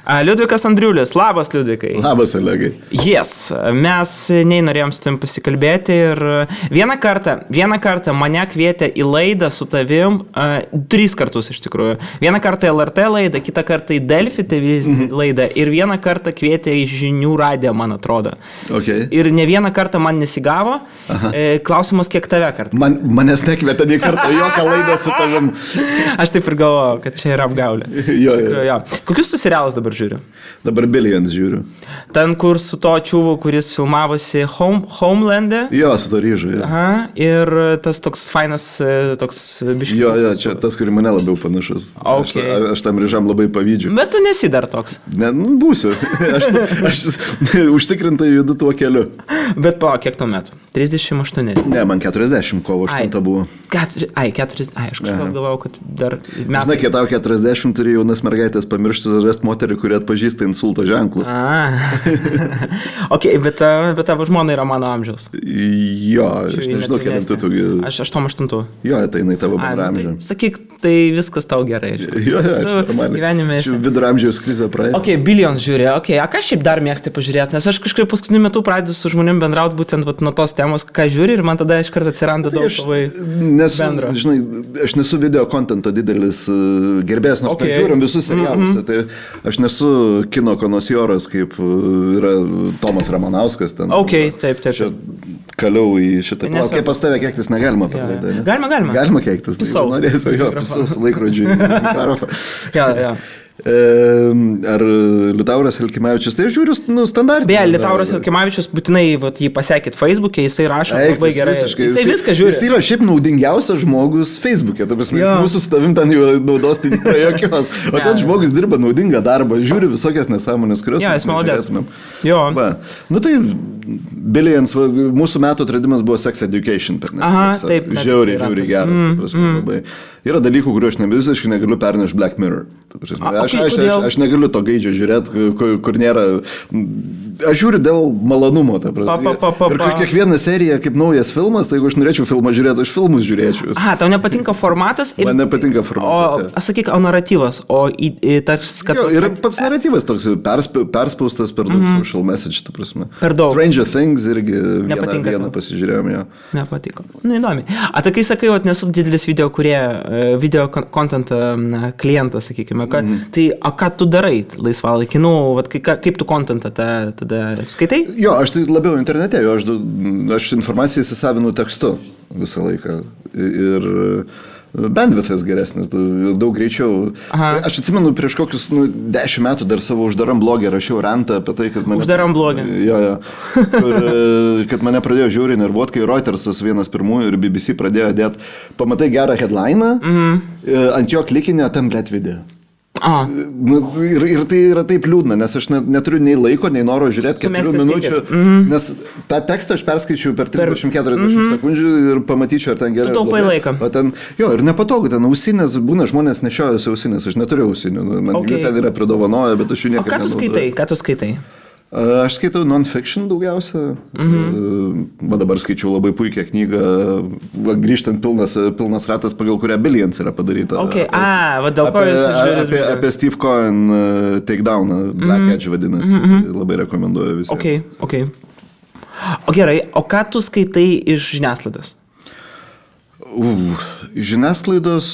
Liudvikas Andriulis, labas Liudvikai. Labas, Olegai. Yes, mes norėjom su tavim pasikalbėti ir vieną kartą mane kvietė į laidą su tavim, 3 kartus iš tikrųjų. Vieną kartą LRT laidą, kitą kartą į Delfi TV laidą ir vieną kartą kvietė į Žinių radiją, man atrodo. Okay. Ir ne vieną kartą man nesigavo. Klausimas, kiek tave kartą? Manęs nekvietė nei kartą jokią laidą su tavim. Aš taip ir galvojau, kad čia yra apgaulė. Jo. Kokius tu serialus dabar žiūri? Dabar Billions žiūriu. Ten, kur su to čiuvu, kuris filmavosi Homeland'e? Jo, su to ryžu. Aha, ir tas toks fainas, toks biškis. Jo, čia tas, kurį mane labiau panašus. Okay. Aš tam ryžam labai pavydžiu. Bet tu nesi dar toks. Ne, būsiu. Aš užtikrintai judu tuo keliu. Bet kiek tuo metu? 38? Ne, man 40, kovo 8 buvo. 40, aš kažkaip galvojau, kad dar metai. Žinai, kai tau 40 turi jaunas mergaitės pamiršti rasti moterį, kuri atpažįsta insulto ženklus. Ok, bet tavo žmona yra mano amžiaus. Jo, aš nežinau, kelintų tu. Aš 88. Jo, tai jinai tavo bendramžė. Tai, sakyk, tai viskas tau gerai. Jo, gyvenime esi. Viduramžiaus krizė praėjo. Ok, Billions žiūrė, ką šiaip dar mėgstai pažiūrėti, nes aš kažkaip paskutiniu metu pradedu su žmonėm bendrauti būtent nuo tos temos, ką žiūri ir man tada iš karto atsiranda daug labai bendro. Žinai, aš nesu video kontento didelis gerbėjas, nors žiūrim visus serialus. Tai aš nesu kino konosijoras, kaip yra Tomas Ramanauskas. Ten, taip. Čia kaliau į šitą. Kaip pas tave keiktis negalima per laidą. Galima. Galima keiktis. Pisau. Norėsiu, pisau su laikrodžiu. Jo. Ar Liutauras Elkimavičius, tai žiūriu standartinį. Beje, Liutauras Elkimavičius būtinai jį pasiekit Facebook'e, jisai rašo labai gerai. Jisai viską žiūri. Jis yra šiaip naudingiausias žmogus Facebook'e, mūsų su tavim ten jau naudos tai nėra jokios, o ten žmogus dirba naudingą darbą, žiūri visokias nesąmonės, kurios mes negalėtumėm. Nu tai Billions, mūsų metų atradimas buvo Sex Education. Taip. Žiauriai geras. Yra dalykų, kuriuo aš visiškai negaliu pernešti Black Mirror. Aš negaliu to gaidžio žiūrėti, kur nėra. Aš žiūriu dėl malonumo. Ir kiekviena serija kaip naujas filmas, tai jeigu aš norėčiau filmą žiūrėti, aš filmus žiūrėčiau. Tau nepatinka formatas? Man nepatinka formatas. Sakyk, o naratyvas? Ir pats naratyvas toks perspaustas per daug social message, tu prasme. Per daug. Stranger Things irgi vieną pasižiūrėjom jo. Nepatiko. Įdomi. Tai kai sakai, nesu didelis video content klientas, sakykime, tai ką tu darai laisvalaikį? Kaip tu contentą tada skaitai? Jo, aš tai labiau internete, aš informaciją įsisavinu tekstu visą laiką ir bandwidthas geresnis, daug greičiau. Aš atsimenu prieš kokius 10 metų dar savo uždaram blogį rašiau rantą apie tai, kad mane... Uždaram blogį? Jo. Kad mane pradėjo žiauriai nervuot, kai Reutersas vienas pirmųjų ir BBC pradėjo dėti, pamatai gerą headliną, ant jo klikinio ten blėt video. Ir tai yra taip liūdna, nes aš neturiu nei laiko, nei noro žiūrėti 4 minučių, nes tą tekstą aš perskaičiu per 30-40 sekundžių ir pamatyčiau, ar ten gerai. Tu taupai laiką. Ir nepatogu, ten ausinės, būna žmonės nešiojasi ausinės, aš neturiu ausinių, man jų ten yra pridovanoję, bet aš jų niekada nenaudoju. Ką tu skaitai? Aš skaitau non-fiction daugiausia. Dabar skaičiau labai puikią knygą, grįžtant pilnas ratas, pagal kurią Billions yra padaryta. Dėl ko jūs žiūrite? Apie Steve Cohen takedowną, Black Edge vadinasi. Labai rekomenduoju visiems. Ok. O gerai, o ką tu skaitai iš žiniasklaidos? Žiniasklaidos...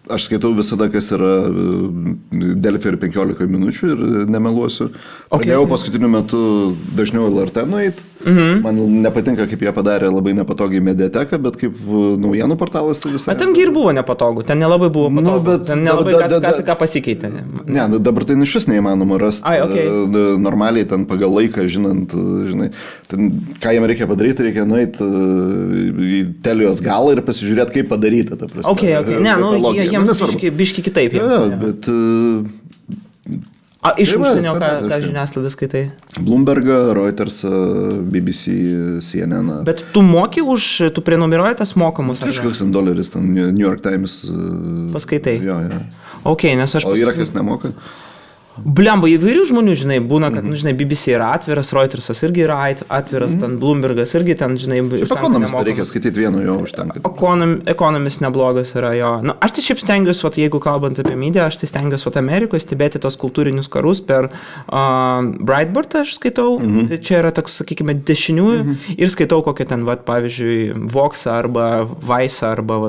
Aš skaitau visada, kas yra Delfi ir 15 minučių ir nemeluosiu. Pradėjau paskutiniu metu dažniau LRT nueit. Man nepatinka, kaip jie padarė labai nepatogiai mediateką, bet kaip naujienų portalas tai visai... Bet tengi ir buvo nepatogu, ten nelabai buvo patogu, ten nelabai ką pasikeitė. Ne, dabar tai iš vis neįmanoma rasti normaliai ten pagal laiką, žinai, ten, ką jam reikia padaryti, reikia nueiti į Telijos galą ir pasižiūrėti, kaip padaryta. Jiems biški kitaip. Bet... Iš užsienio, ką žiniasklaidą skaitai? Bloombergą, Reutersą, BBC, CNN. Bet tu moki tu prenumeruoji tas mokamus? Kažkoks $10, ten New York Times. Paskaitai? Jo. Ok, nes aš... O yra kas nemoka? Blemba, įvairių žmonių, žinai, būna, kad, žinai, BBC yra atviras, Reutersas irgi yra atviras, ten Bloombergas irgi ten, žinai, Ekonomistą reikia skaityti vienu, jo užtenka. Ekonomist neblogas yra, jo. Nu, aš tai šiaip stengiuosi, jeigu kalbant apie mediją, aš tai stengiuosi Amerikoje stebėti tos kultūrinius karus per Breitbart, aš skaitau, čia yra toks, sakykime, dešiniųjų ir skaitau kokią ten, pavyzdžiui, Voxą arba Vice'ą arba,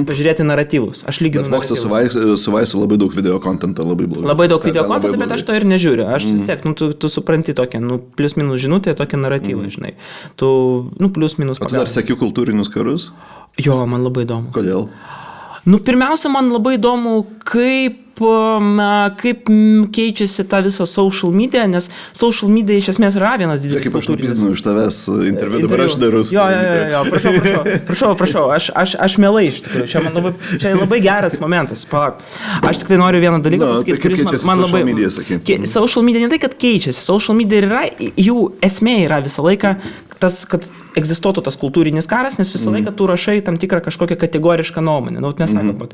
pažiūrėti naratyvus. Aš lyginu naratyvus. Vox'ą su Vice'u labai daug video kontento, labai daug video kontento, bet aš to ir nežiūriu. Aš tiesiog, tu supranti tokią, plius minus žinutę, tokią naratyvą, žinai. Tu, plius minus pagal. O tu dar seki kultūrinius karus? Jo, man labai įdomu. Kodėl? Pirmiausia, man labai įdomu, kaip keičiasi ta visa social media, nes social media iš esmės yra vienas didelis kultūrinis. Kaip aš nupizdinu iš tavęs interviu, dabar aš darau. Jo, prašau, aš mielai iš tikrųjų, čia labai geras momentas, palauk. Aš tik tai noriu vieną dalyką pasakyti, kuris man labai... Social media ne tai, kad keičiasi, social media yra, jų esmė yra visą laiką tas, kad egzistuotų tas kultūrinis karas, nes visą laiką tu rašai tam tikrą kažkokią kategorišką nuomonę. Mes sakom,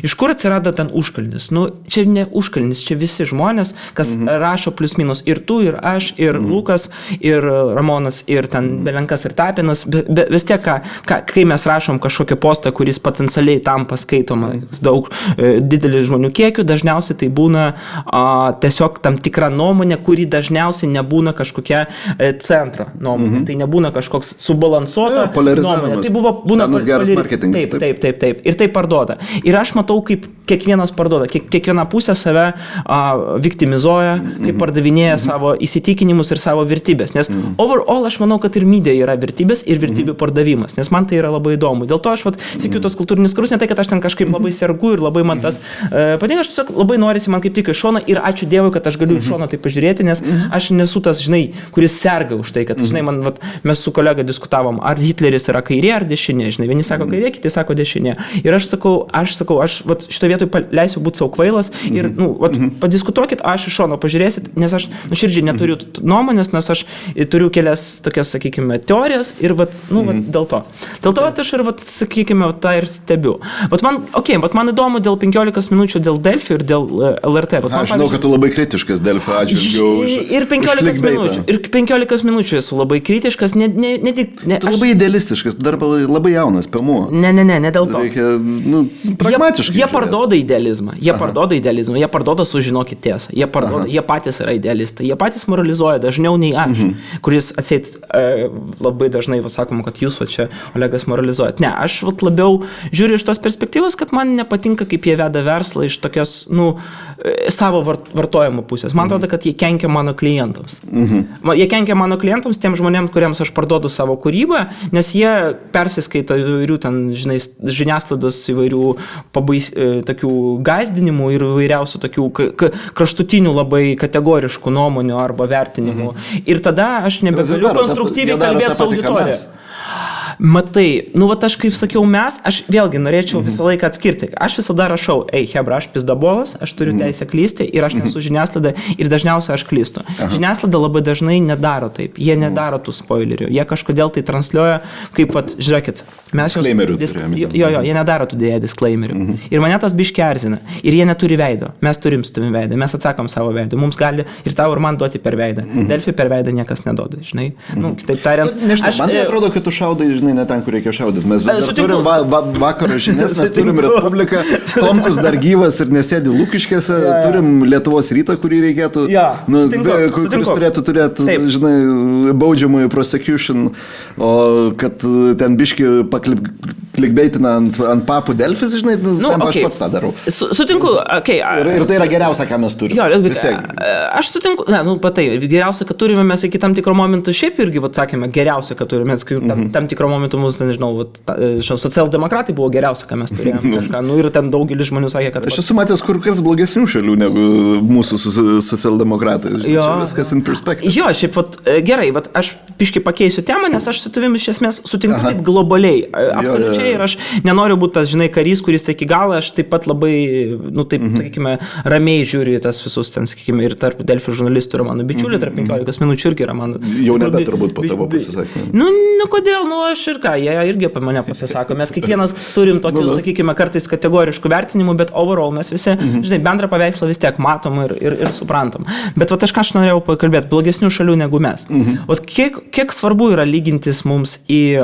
iš kur atsirado ten užkalnis? Čia ne užkalnis, čia visi žmonės, kas rašo plius minus ir tu, ir aš, ir Lukas, ir Ramonas, ir ten Belenkas, ir Tapinas. Vis tiek, kai mes rašom kažkokią postą, kuris potencialiai tampa skaitomas daug didelį žmonių kiekių, dažniausiai tai būna tiesiog tam tikra nuomonė, kuri dažniausiai nebūna kažkokia centro nuomonė. Tai nebūna kažkoks subalansuota nuomonė. Tai būna geras marketingas. Taip. Ir tai parduoda. Ir aš matau, kaip kiekvienas parduoda. Kiekviena pusė save viktimizuoja, kaip pardavinėja savo įsitikinimus ir savo vertybės. Nes overall aš manau, kad ir media yra vertybės ir vertybių pardavimas. Nes man tai yra labai įdomu. Dėl to aš sėkiu tos kultūrinius karus, ne tai, kad aš ten kažkaip labai sergu ir labai man tas patinka. Aš tiesiog labai norisi man kaip tik iš šono ir ačiū Dievui, kad aš galiu iš šono tai pažiūrėti, nes aš nesu tas, žinai, kuris serga už tai, kad, žinai, mes su kolega diskutavom, ar Hitleris yra kairė ar dešinė, žinai, vieni sako kairė, kiti sako dešinė. Ir aš sakau, aš šito vietoj leisiu būti savo kvailas ir, padiskutuokit, aš iš šono pažiūrėsit, nes aš nuširdžiai neturiu nuomonės, nes aš turiu kelias tokias, sakykime, teorijas ir, dėl to. Dėl to aš ir, sakykime, tą ir stebiu. Bet man įdomu dėl 15 minučių dėl Delfi ir dėl LRT. Aš žinau, kad tu labai kritiškas Delfi atžvilgiu už ir 15 minučių esu labai kritiškas, tu labai idealistiškas, dar labai jaunas, pėmuo. Ne dėl to. Reikia, pragmatiškai. Jie parduoda idealizmą, jie parduoda sužinokit tiesą, jie patys yra idealistai, jie patys moralizuoja dažniau nei aš, kuris atseit labai dažnai sakoma, kad jūs čia, Olegas, moralizuojat. Ne, aš labiau žiūriu iš tos perspektyvos, kad man nepatinka, kaip jie veda verslą iš tokios, savo vartojimo pusės. Man atrodo, kad jie kenkia mano klientams. Jie kenkia mano klientams, tiem žmonėms, kuriems aš parduodu savo kūrybą, nes jie persiskaito įvairių ten, žinai, žiniasklaidos įvairių tokių gąsdinimų ir įvairiausių tokių kraštutinių labai kategoriškų nuomonių arba vertinimų. Ir tada aš nebegaliu konstruktyviai kalbėti su auditorija. Matai, aš kaip sakiau aš vėlgi norėčiau visą laiką atskirti. Aš visada rašau, hebra, aš pizdabolas, aš turiu teisę klysti ir aš nesu žiniasklaida ir dažniausiai aš klystu. Žiniasklaida labai dažnai nedaro taip, jie nedaro tų spoilerių, jie kažkodėl tai transliuoja, kaip žiūrėkit, mes jie nedaro tų dėja disclaimerių. Ir mane tas biški erzina. Ir jie neturi veido, mes turim su tavim veidą, mes atsakom savo veidą, mums gali ir tau ir man duoti per veidą. Delfi per veidą niekas neduoda, žinai. Kitaip tariant, man tai atrodo, kad tu šaudai, žinai, ne ten, kur reikia šaudyti. Mes vis dar turim vakaro žinias, mes turim Respubliką, Tomkus dar gyvas ir nesėdi Lukiškėse, turim Lietuvos rytą, kurį reikėtų, kuris turėtų turėti, žinai, baudžiamųjų prosecution, o kad ten biški klikbeitina ant papų Delfis, žinai, aš pats tą darau. Sutinku, Ir tai yra geriausia, ką mes turime. Aš sutinku, geriausia, kad turime mes iki tam tikro momentų, šiaip irgi, sakėme, geriausia, kad turime, tam tikro momentų mus, nežinau, socialdemokratai buvo geriausia, ką mes turėjome kažką, ir ten daugelis žmonių sakė, kad... Aš esu matęs kur kas blogesnių šalių negu mūsų socialdemokratai. Čia viskas in perspective. Jo, šiaip, gerai, aš biškai pakeisiu temą, nes aš su tavimi iš esmės sutinku taip globaliai, absoliučiai, ir aš nenoriu būti tas, žinai, karys, kuris iki galo, aš taip pat labai, sakykime, ramiai žiūriu tas visus ten, sakykime, ir tarp Delfi žurnalistų yra mano bičiuliai, tarp 15 minučių irgi yra mano... Jau nebe turbūt po tavo pasisakymą. Kodėl, aš ir ką, jie irgi apie mane pasisako. Mes kiekvienas turim tokių, sakykime, kartais kategoriškų vertinimų, bet overall mes visi, žinai, bendrą paveikslą vis tiek matom ir suprantam. Bet vat aš norėjau pakalbėti, blogesnių šalių negu mes. Vat kiek svarbu yra lygintis mums į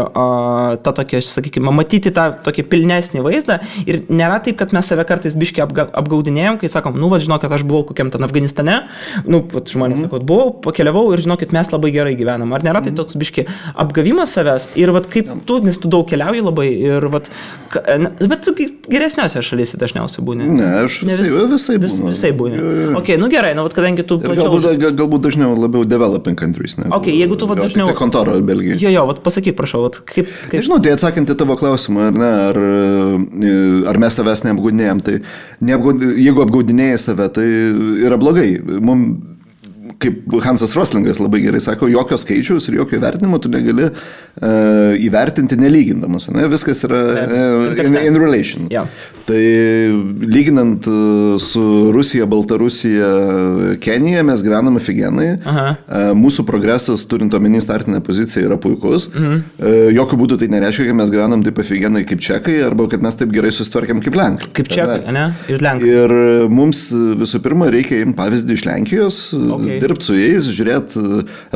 tą tokią, sakykime, matyti tą tokį pilnesnį vaizdą ir nėra taip, kad mes save kartais biškai apgaudinėjom, kai sakom, nu, vat žinau, kad aš buvau kokiam ten Afganistane, nu, vat žmonės sako, buvau, pakeliavau ir žinokit, mes labai gerai gyvenam. Ar nėra tai toks biški apgavimas savęs ir vat kaip tu, nes tu daug keliauji labai ir vat, bet tu geresniuose šalyse dažniausiai būni. Ne, aš visai būni. Ok, nu gerai, nu vat kadangi tu plačiau... Galbūt dažniau labiau developing countries. Ok, jeigu tu vat dažniau... Tai kontoro Belgijai. Jo, vat pasakyk, prašau, vat kaip... Nežinau, tai atsakant į tavo klausimą, ar ne, ar mes savęs neapgaudinėjom, tai jeigu apgaudinėjai save, tai yra blogai. Mums kaip Hansas Roslingas labai gerai sako, jokio skaičiaus ir jokio įvertinimo tu negali įvertinti nelygindamas. Ne? Viskas yra in relation. Yeah. Tai lyginant su Rusija, Baltarusija, Kenija mes gyvename figenai. Mūsų progresas, turint omeny startinę poziciją, yra puikus. Jokių būdų tai nereiškia, kad mes gyvenam taip figenai kaip čekai arba kad mes taip gerai susitvarkėm kaip lenkai. Kaip čekai, ne? Ir lenkai. Ir mums visų pirma reikia imti pavyzdį iš Lenkijos, dirbti su jais, žiūrėti.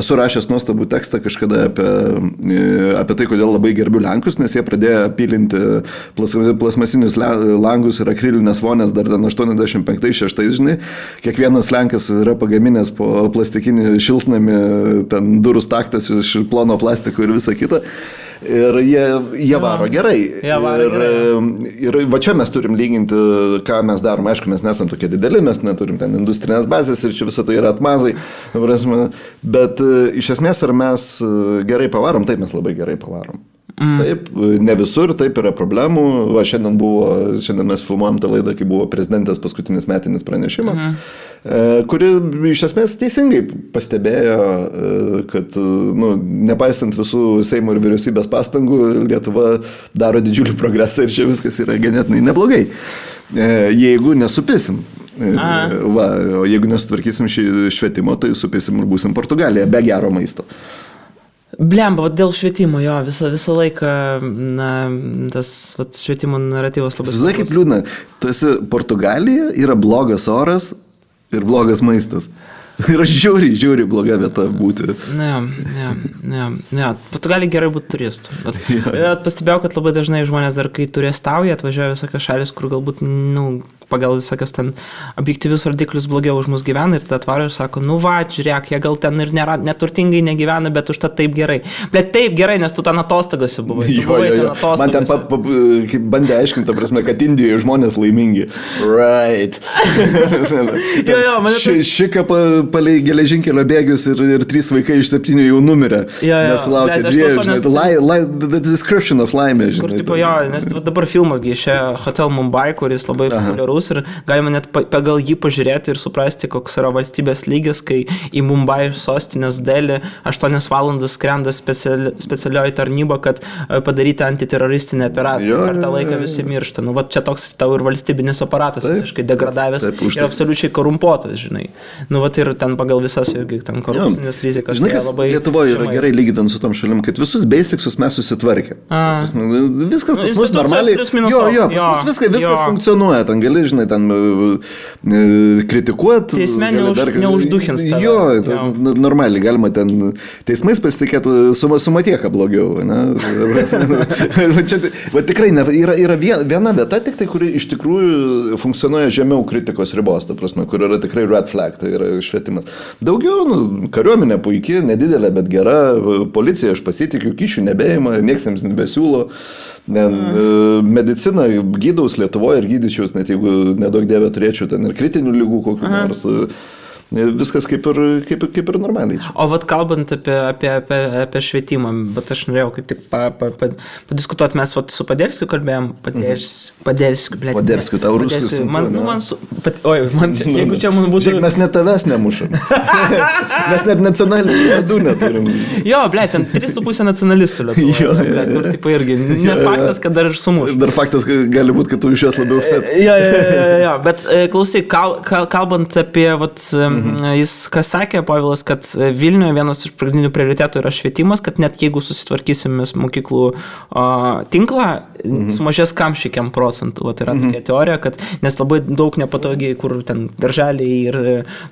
Esu rašęs nuostabų tekstą kažkada apie tai, kodėl labai gerbiu lenkus, nes jie pradėjo pilinti plasmasinius langus ir akrilinės vonės dar 85-6, žinai. Kiekvienas lenkas yra pagaminęs po plastikinį šiltnamį, ten durų staktas iš plono plastiko ir visa kita. Ir jie varo gerai. Ir va čia mes turim lyginti, ką mes darom. Aišku, mes nesam tokie dideli, mes neturim ten industrinės bazės ir čia visą tai yra atmazai. Bet iš esmės, ar mes gerai pavarom? Taip, mes labai gerai pavarom. Taip, ne visur, taip yra problemų. Va, šiandien mes filmuojam tą laidą, kai buvo prezidentės paskutinis metinis pranešimas, kuri iš esmės teisingai pastebėjo, kad nepaisant visų Seimo ir vyriausybės pastangų, Lietuva daro didžiulį progresą ir čia viskas yra ganėtinai neblogai. Jeigu nesupisim. Va, o jeigu nesutvarkysim švietimo, tai supisim ir būsim Portugalija be gero maisto. Blemba, dėl švietimo, jo, visą laiką, tas švietimo naratyvas labai... Visai kaip liūdna, tu esi Portugalija, yra blogas oras ir blogas maistas. Yra žiauriai bloga vieta būti. Ne. Portugalija gerai būti turistų. Pastebėjau, kad labai dažnai žmonės dar, kai turistauja, atvažiuoja visokios šalis, kur galbūt, pagal visokios ten objektyvius rodiklius blogiau už mus gyvena ir tada atvaro ir sako, žiūrėk, jie gal ten ir neturtingai negyvena, bet užtat taip gerai. Bet taip gerai, nes tu ten atostogose buvai. Jo. Man ten bandė aiškinti, prasme, kad Indijoje žmonės laimingi. Right. Šika palei geležinkelio bėgius ir 3 vaikai iš 7 jau numirė. Nesulaukė 2. The description of laimė, žinai. Kur tipo, nes dabar filmas išėjo Hotel Mumbai, kuris labai populiarus ir galima net pagal jį pažiūrėti ir suprasti, koks yra valstybės lygis, kai į Mumbai sostinės Delį 8 valandas skrenda specialioji tarnyba, kad padaryti antiteroristinę operaciją. Per tą laiką visi miršta. Va čia toks tau ir valstybinis aparatas visiškai degradavęs ir absoliučiai korumpuotas, žinai. Va ir ten pagal visas irgi ten korupcinės rizikas. Žinai, kas Lietuvoje yra gerai lyginant su tom šalim, kad visus basicsus mes susitvarkė. Viskas pas mus normaliai. Viskas funkcionuoja. Ten gali, žinai, ten kritikuoti. Teisme neužduchins tavęs. Jo, normaliai galima ten teismais pasitikėti su Matieka blogiau. Va tikrai yra viena vieta, tik tai, kuri iš tikrųjų funkcionuoja žemiau kritikos ribos, ta prasme, kur yra tikrai red flag, tai yra švietimas. Daugiau, kariuomenė puikiai, nedidelė, bet gera, policija aš pasitikiu, kyšių nebeima, nieks jiems nebesiūlo. Medicina gydaus Lietuvoje ir gydyčiaus, net jeigu nedaug dievė turėčiau ten ir kritinių ligų kokių nors. Viskas kaip ir normaliai. O vat kalbant apie švietimą, bet aš norėjau kaip tik padiskutuoti, mes vat su Paderskiu kalbėjom, Paderskiu, tau ruskus. Jeigu čia man būtų... Mes net tavęs nemušam. Mes net nacionalinių vadų neturim. Jo, ten 3,5 nacionalistų Lietuvoje. Kur tipo irgi, ne faktas, kad dar ir sumuš. Dar faktas, kad gali būti, kad tu iš jos labiau fet. Jo, bet klausyk, kalbant apie vat jis, kas sakė, Povilas, kad Vilniuje vienas iš pagrindinių prioritetų yra švietimas, kad net jeigu susitvarkysim mokyklų tinklą, sumažės kamščiai procentų. Tai yra tokia teorija, kad nes labai daug nepatogiai, kur ten darželiai ir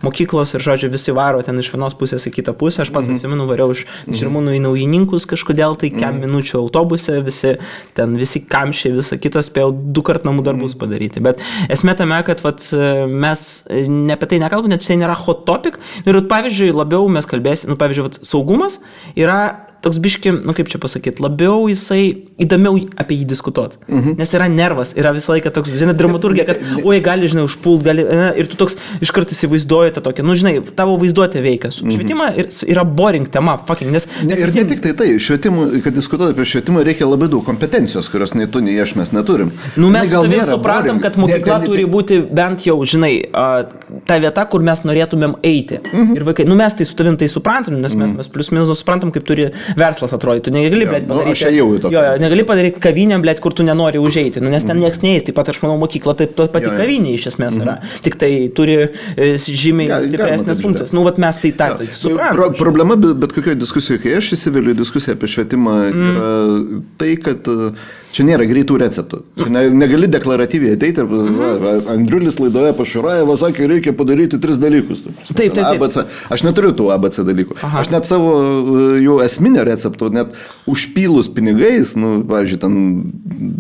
mokyklos ir, žodžiu, visi varo ten iš vienos pusės į kitą pusę. Aš pats atsimenu, variau iš Žirmūnų į Naujininkus kažkodėl, tai kem minučių autobuse, visi kamščiai, visa kita spėjau 2 kart namų darbus padaryti. Bet esmė tame, kad mes ne apie tai nekalbame, net tai nėra hot topic. Ir pavyzdžiui, labiau mes kalbėsime, pavyzdžiui, saugumas yra toks biški, kaip čia pasakyti, labiau jisai įdomiau apie jį diskutuoti. Nes yra nervas, yra visą laiką toks, žinai, dramaturgija, kad, gali, žinai, užpult, gali, ir tu toks iš karto įsivaizduoji tą tokią, žinai, tavo vaizduotė veikia. Švietimą yra boring tema, fucking, nes ir ne tik tai, švietimų, kad diskutuoti apie švietimą reikia labai daug kompetencijos, kurios nei tu, nei aš mes neturim. Mes tavim supratom, kad mokykla turi būti bent jau, žinai, ta vieta, kur mes norėtumėm eiti. Ir vaikai, mes tai su tavim tai suprantam, nes mes plius minus suprantam, kaip turi verslas atrodytų. Negali, negali padaryti kavinę, kur tu nenori užeiti, nes ten nieks neįs. Taip pat aš manau, mokykla taip pati kavinė iš esmės yra. Tik tai turi žymiai stipresnės funkcijas. Mes tai suprantam. Problema bet kokioje diskusijoje, kai aš įsiveliu į diskusiją apie švietimą, yra tai, kad čia nėra greitų receptų. Čia negali deklaratyviai ateiti ir Andriulis laidoje Pašurajevo sakė, reikia padaryti 3 dalykus. Taip. ABC. Aš neturiu tų ABC dalykų. Aš net savo jų esminio receptų, net užpylus pinigais, pavyzdžiui, ten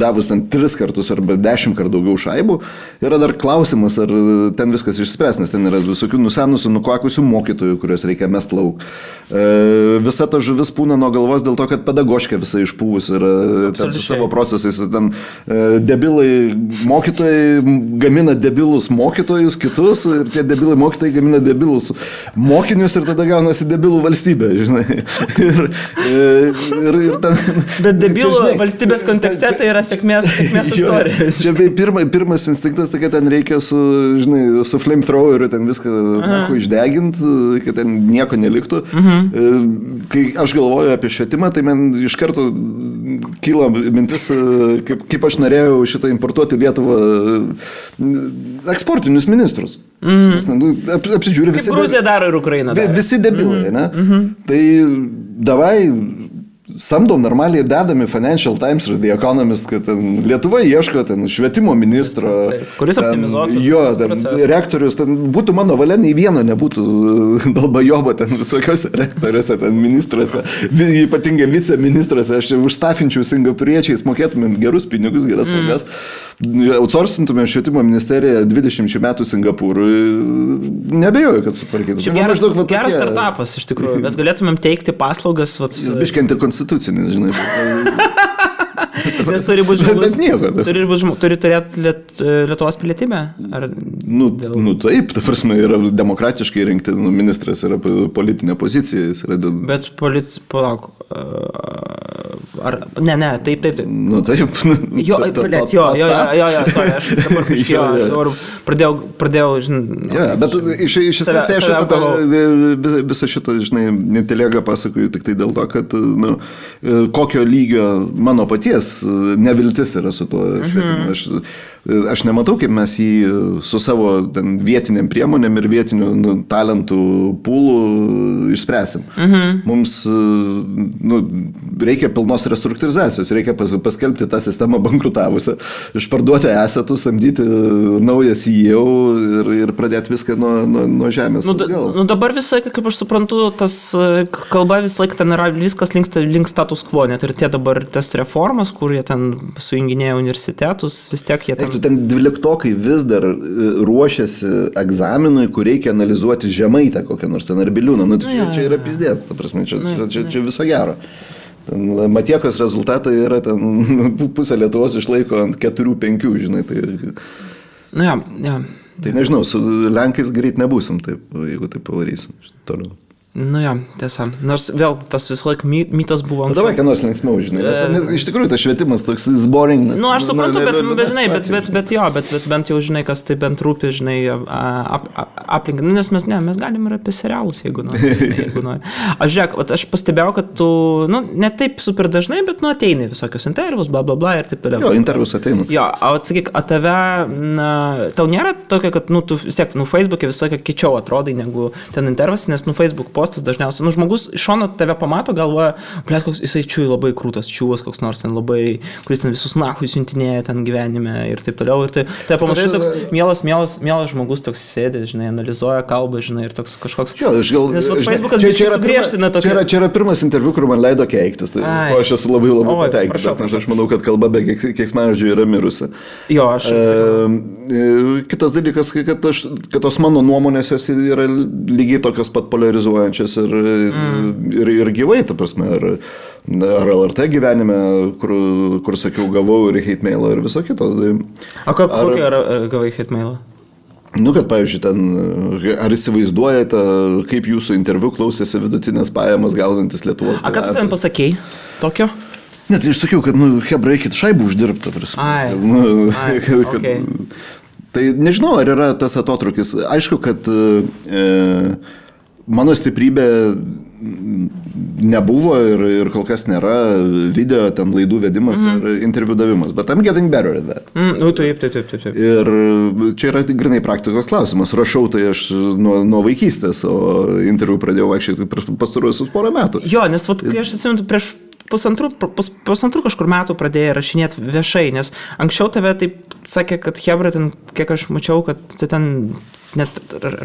davus 3 kartus arba 10 kartų daugiau šaibų, yra dar klausimas, ar ten viskas išspręs, nes ten yra visokių nusenusių, nukvakusių mokytojų, kuriuos reikia mest lauk. Visa ta žuvis pūna nuo galvos dėl to, kad pedagoškė visai išpūvus yra su savo procesais. Ten debilai mokytojai gamina debilus mokytojus kitus ir tie debilai mokytojai gamina debilus mokinius ir tada gaunasi debilų valstybė, žinai. Ir ten, bet debilų valstybės kontekste tai yra sėkmės istorija. Čia pirmas instinktas, tai kad ten reikia su flamethroweriu ten viską išdeginti, kad ten nieko neliktų. Kai aš galvoju apie švietimą, tai man iš karto kyla mintis, kaip aš norėjau šitą importuoti Lietuvą eksportinius ministrus. Apsidžiūrė visi. Kaip Gruzija daro ir Ukraina daro. Visi debilai, ne? Tai davai samdom normaliai dedami Financial Times ir The Economist, kad ten Lietuva ieško ten švietimo ministro. Kuris optimizuotų. Jo, rektorius, ten būtų mano valia, nei vieno nebūtų dalbajobo ten visokiose rektoriuose, ten ministruose, ypatingai viceministruose, aš užstafinčiau singapuriečiais, mokėtumėm gerus pinigus, geras algas, outsourcintumėm švietimo ministeriją 20 metų Singapūrui, nebejoju, kad sutvarkytų. Geras startupas, iš tikrųjų, mes galėtumėm teikti paslaugas. Jis biškianti konstitucinis, žinai. Nes turi būti žmogus. Turi turėti Lietuvos pilietybę? Taip, ta prasme, yra demokratiškai rinkti, ministras yra politinė pozicija. Bet palauk. Ne, taip. Taip. Jo, sorry, aš dabar pradėjau, žinai. Bet iš esmės tai aš visą šitą, žinai, netelėgą pasakoju tik tai dėl to, kad kokio lygio mano paties neviltis yra su tuo švietimu. Aš nematau, kaip mes jį su savo vietiniam priemonėm ir vietinių talentų pūlų išspręsim. Mums reikia pilnos restruktūrizacijos, reikia paskelbti tą sistemą bankrutavusią, išparduoti esetus, samdyti naują CEO ir pradėti viską nuo žemės. Dabar visai, kaip aš suprantu, tas kalba visą laiką ten yra, viskas link status quo, net ir tie dabar tas reformas, kur jie ten sujunginėja universitetus, vis tiek jie ten... Ten 12-okai vis dar ruošiasi egzaminui, kur reikia analizuoti Žemaitę kokią nors ten ar Biliūną. Čia yra pizdėts, ta prasme, čia viso gero. Matiekos rezultatai yra ten pusę Lietuvos išlaiko ant 4-5, žinai. Tai nežinau, su Lenkais greit nebūsim taip, jeigu taip pavarysim toliau. Nu jo, tiesa. Nors vėl tas visą laiką mytas buvo. Davai, ką nors linksmiau, žinai. Nes iš tikrųjų tas švietimas toks boring. Nu, aš suprantu, bet bent jau, žinai, kas tai bent rūpi, žinai, aplinkai. Nu, nes mes galim ir apie serialus, jeigu nori. Aš žiūrėk, aš pastebėjau, kad tu, nu, ne taip super dažnai, bet, nu, ateini visokios intervus, bla, bla, bla ir taip toliau. Jo, intervus ateinu. Jo, atsakyk, tave, tau nėra tokia, kad, nu, tu vis tiek, nu, Facebook'e visą laiką kičiau atrodai negu ten intervas, nes, nu, Facebook postas dažniausiai, nu, žmogus iš šono tave pamato, galvoja, blėt, koks jisai čiūj labai krūtas čiūvas, koks nors ten labai, kuris ten visus nachui siuntinėja ten gyvenime ir taip toliau. Ir tai pamatai toks mielas žmogus toks sėdė, žinai, analizuoja kalbą, žinai, ir toks kažkoks. Jo, nes Facebookas čia sugriežtina tokį. Čia yra pirmas interviu, kur man leido keiktis, tai aš esu labai patenkintas, nes aš manau, kad kalba be keiksmažodžių yra mirusi. Jo, aš. Kitas dalykas, kad tos mano nuomonės jos yra lygiai tokios pat polarizuojančios ir gyvai, ta prasme, ar LRT gyvenime, kur sakiau, gavau ir hate mailą ir viso kito. Kokį gavai hate mailą? Nu, kad, pavyzdžiui, ten, ar įsivaizduojate, kaip jūsų interviu klausėsi vidutinės pajamas gaunantis Lietuvos. Ką tu ten pasakei tokio? Ne, tai aš sakiau, kad, nu, hebra, eikit šaibų uždirbti, ta prasme. Okay. Tai nežinau, ar yra tas atotrukis. Aišku, kad mano stiprybė nebuvo ir kol kas nėra video, ten laidų vedimas ir interviu davimas, bet I'm getting better at that. Taip. Ir čia yra grinai praktikos klausimas. Rašau tai aš nuo vaikystės, o interviu pradėjau vaikščioti pastaruosius porą metų. Jo, nes vat, kai aš atsimenu, prieš pusantrų kažkur metų pradėjai rašinėti viešai, nes anksčiau tave taip sakė, kad hebra ten, kiek aš mačiau, kad tu ten net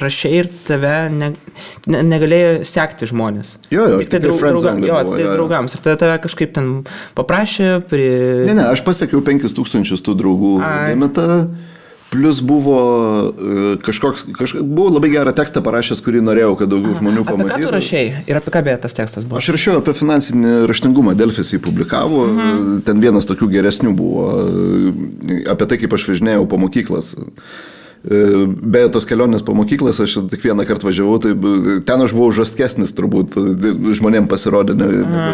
rašiai ir tave negalėjo sekti žmonės. Jo, tik tai draugams. Ir tave kažkaip ten paprašė Ne, aš pasiekiau 5000 tų draugų limitą. Plus buvo buvo labai gerą tekstą parašęs, kurį norėjau, kad daugiau žmonių pamatytų. Apie ką tu rašei ir apie ką beje tas tekstas buvo? Aš rašiau apie finansinį raštingumą, Delfis jį publikavo, ten vienas tokių geresnių buvo, apie tai, kaip aš važinėjau po mokyklas. Beje, tos kelionės po mokyklas, aš tik vieną kartą važiavau, tai ten aš buvau žastkesnis turbūt, žmonėm pasirodė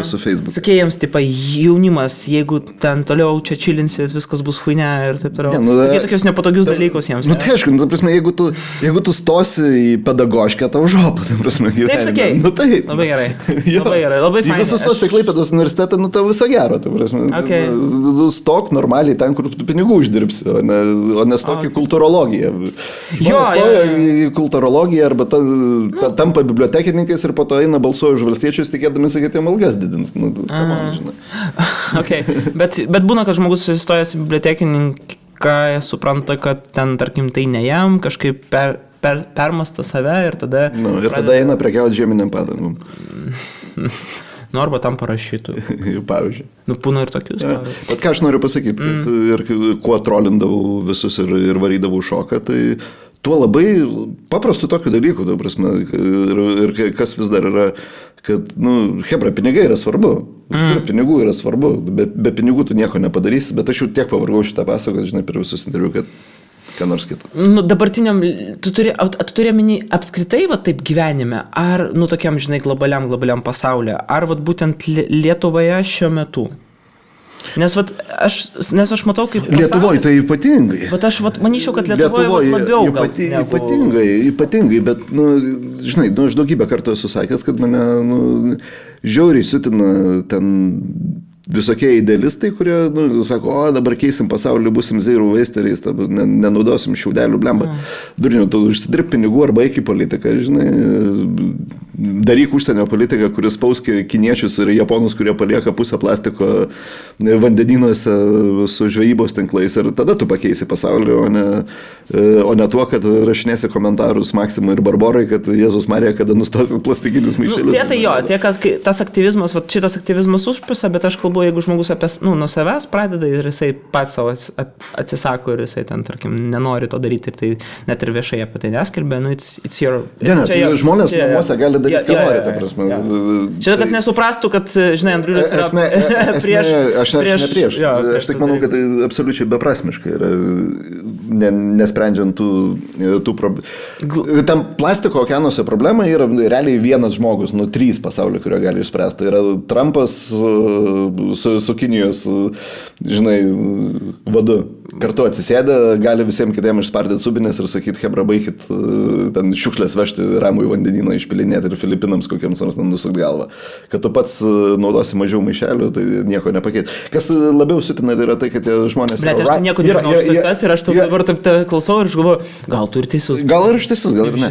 su Facebook. Sakė jiems, tipo, jaunimas, jeigu ten toliau čia čilinsit, viskas bus huine ir taip toliau. Sakė tokius nepatogius dalykus jiems. Nu tai aišku, ta prasme, jeigu tu stosi į pedagoškę, tau žopą, ta prasme, gyvenime. Taip sakei? Nu taip. Labai gerai. Labai fainai. Jeigu tu stosi į Klaipėdos universitetą, nu tau viso gero, ta prasme. Okay. Stok normaliai ten, kur tu pinigų uždirbsi, o ne stok į kultūrologiją. Stoja į kultūrologiją arba tampa bibliotekininkais ir po to eina balsuoja už valstiečius, tikėdami, kad jiem algas didins. Nu, okay. Bet būna, kad žmogus susistojęs į bibliotekininką supranta, kad ten, tarkim, tai ne jam, kažkaip permasta save ir tada... Ir tada eina prekiauti žieminiam padangom. Nu, arba tam parašytų. Pavyzdžiui. Nu, būna ir tokius. Bet ką aš noriu pasakyti, kad ir kuo trolindavau visus ir varydavau šoką, tai tuo labai paprastų tokių dalykų, ta prasme, ir kas vis dar yra, kad, nu, hebra, pinigai yra svarbu. Pinigų yra svarbu. Be pinigų tu nieko nepadarysi, bet aš jau tiek pavargau šitą pasakot, žinai, per visus interviu, kad ką nors kitą. Nu, dabartiniam, tu turi minį apskritai, va, taip gyvenime, ar, nu, tokiam, žinai, globaliam pasaulyje, ar, va, būtent Lietuvoje šiuo metu? Nes aš matau, kaip... Lietuvoje tai ypatingai. Bet aš manyčiau, kad Lietuvoje labiau ypatingai, bet, nu, žinai, aš daugybę kartų esu sakęs, kad mane, nu, žiauriai siutina ten visokie idealistai, kurie, nu, sako, o dabar keisim pasaulį, busim zero wasteriais, nenaudosim šiaudelių, blemba. Durniu, tu užsidirb pinigų arba eik į politiką, žinai, daryk užsienio politiką, kuris spauskė kiniečius ir japonus, kurie palieka pusę plastiko vandenynuose su žvejybos tinklais ir tada tu pakeisi pasaulį, o ne tuo, kad rašinėsi komentarus Maksimui ir Barborai, kad Jėzus Marija, kada nustosi plastikinius maišelius. Tai jo, tas aktyvizmas, šitas aktyvizmas užpisa, bet aš kalbu labiau, jeigu žmogus nuo savęs pradeda ir jisai pats savo atsisako ir jisai ten, tarkim, nenori to daryti ir tai net ir viešai apie tai neskelbė, it's your... Žmonės namuose gali daryti, ką nori, ta prasme. Čia, kad nesuprastų, kad, žinai, Andriulis yra prieš... Aš ne prieš. Aš tik manau, kad tai absoliučiai beprasmiškai yra, nesprendžiant tų problemų. Tam plastiko okeanuose problema yra realiai vienas žmogus, 3 pasaulio, kurio gali išspręsti. Tai yra Trumpas su Kinijos, žinai, vadu. Kartu atsisėdę, gali visiems kitiems išspardyti subinės ir sakyti, hebra, baikit ten šiukšlės vežti ramų į vandenyną, išpilinėti ir Filipinams kokiems nors nusukti galvą. Kad tu pats naudosi mažiau maišelių, tai nieko nepakeit. Kas labiau sutina, tai yra tai, kad tie žmonės... Bet aš tai nieko nežinau šitą situaciją ir aš dabar taip klausau ir aš galvoju, gal tu ir teisus. Gal ir aš teisus, gal ir ne.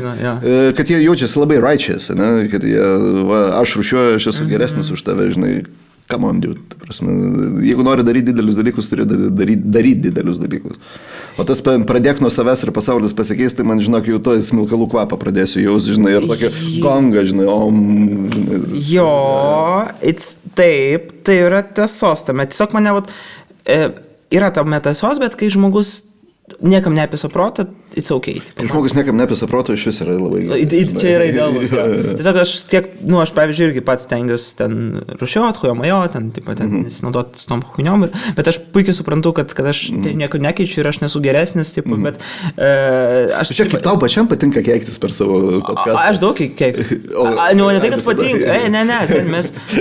Kad jie jaučiasi labai righteous, ne? Kad jie, aš rūšiuoju, aš esu geresnis už tave, žinai. Come on, dude. Jeigu nori daryti didelius dalykus, turi daryti didelius dalykus. O tas pradėk nuo savęs ir pasaulis pasikeis, tai man, žinok, jau to smilkalų kvapą pradėsiu jaus, žinai, ir tokį gongą, žinai, žinai. Jo, taip, tai yra tiesos tame. Tiesiog mane, yra tame tiesos, bet kai žmogus niekam neapisa protą, it's okay. Žmogus niekam neapisa protą, iš vis yra labai gerai. Čia yra idealus. Tiesiog aš aš pavyzdžiui irgi pats stengiuosi ten rušiuot, hujomajo, ten nesinaudoti su tom huijom, bet aš puikiai suprantu, kad aš nieko nekeičiu ir aš nesu geresnis, bet aš... Čia kaip tau pačiam patinka keiktis per savo podcastą. Aš daug keiktis. Ne tai, kad patinka. Ne,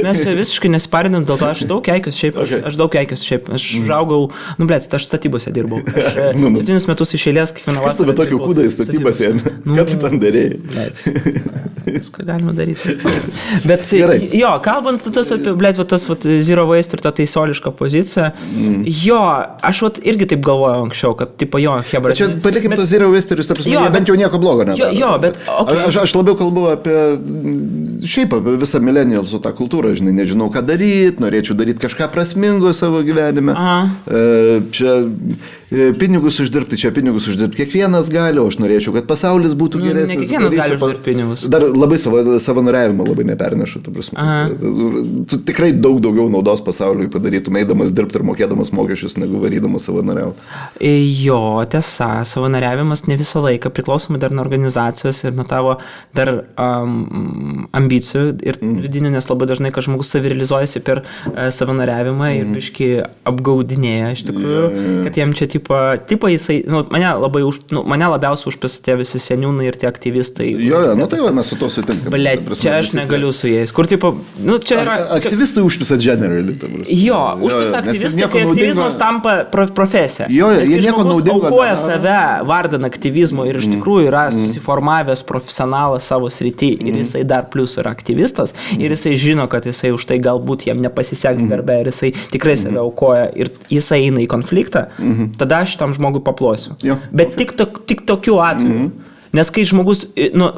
mes čia visiškai nesiparinam, dėl to aš daug keikis šiaip. Aš daug keikis šiaip. Aš žaugau, aš statybose dirbau. 7 metus iš eilės kiekvieną vasarą. Kas tave tokio kūdą į statybas ėmė? Ką tu ten darėjai? Viską galima daryti. Bet jo, kalbant tas apie, tas zero waste ir tą teisiolišką poziciją, jo, aš irgi taip galvojau anksčiau, kad tipo jo, hebra. Čia palikim to zero waste ir jie bent jau nieko blogo nedaro. Jo, bet... Aš labiau kalbu apie šiaip visą millennialsų tą kultūrą, žinai, nežinau ką daryti, norėčiau daryti kažką prasmingo savo gyvenime. Čia pinigus uždirbti, kiekvienas gali, o aš norėčiau, kad pasaulis būtų geresnis. Ne kiekvienas gali uždirbti pinigus. Dar labai savanoriavimą labai nepernešu, tu prasme. Tu tikrai daugiau naudos pasauliui padarytum, eidamas dirbti ir mokėdamas mokesčius, negu varydamas savanoriauti. Jo, tiesa, savanoriavimas ne visą laiką, priklausomai dar nuo organizacijos ir nuo tavo dar ambicijų ir vidinių, nes labai dažnai, kad žmogus savirealizuojasi per savanoriavimą ir biškį apgaudinėja, iš tikrųjų, kad jiem čia tipo jisai, mane labiausiai užpisa tie visi seniūnai ir tie aktyvistai. Jo, tai va, mes su to sutinkam. Blet, čia aš negaliu su jais. Kur tipo, čia yra... Aktyvistai užpisa generally. Jo, užpisa aktyvistai, kai aktyvizmas tampa profesija. Jo, jie nieko naudingo. Aukoja save vardan aktyvizmo ir iš tikrųjų yra susiformavęs profesionalas savo srity ir jisai dar plus yra aktyvistas ir jisai žino, kad jisai už tai galbūt jam nepasiseks darbe ir jisai tikrai save aukoja ir jisai eina į konfliktą, tada aš šitam žmogui paplosiu. Bet tik tokiu atveju. Nes kai žmogus,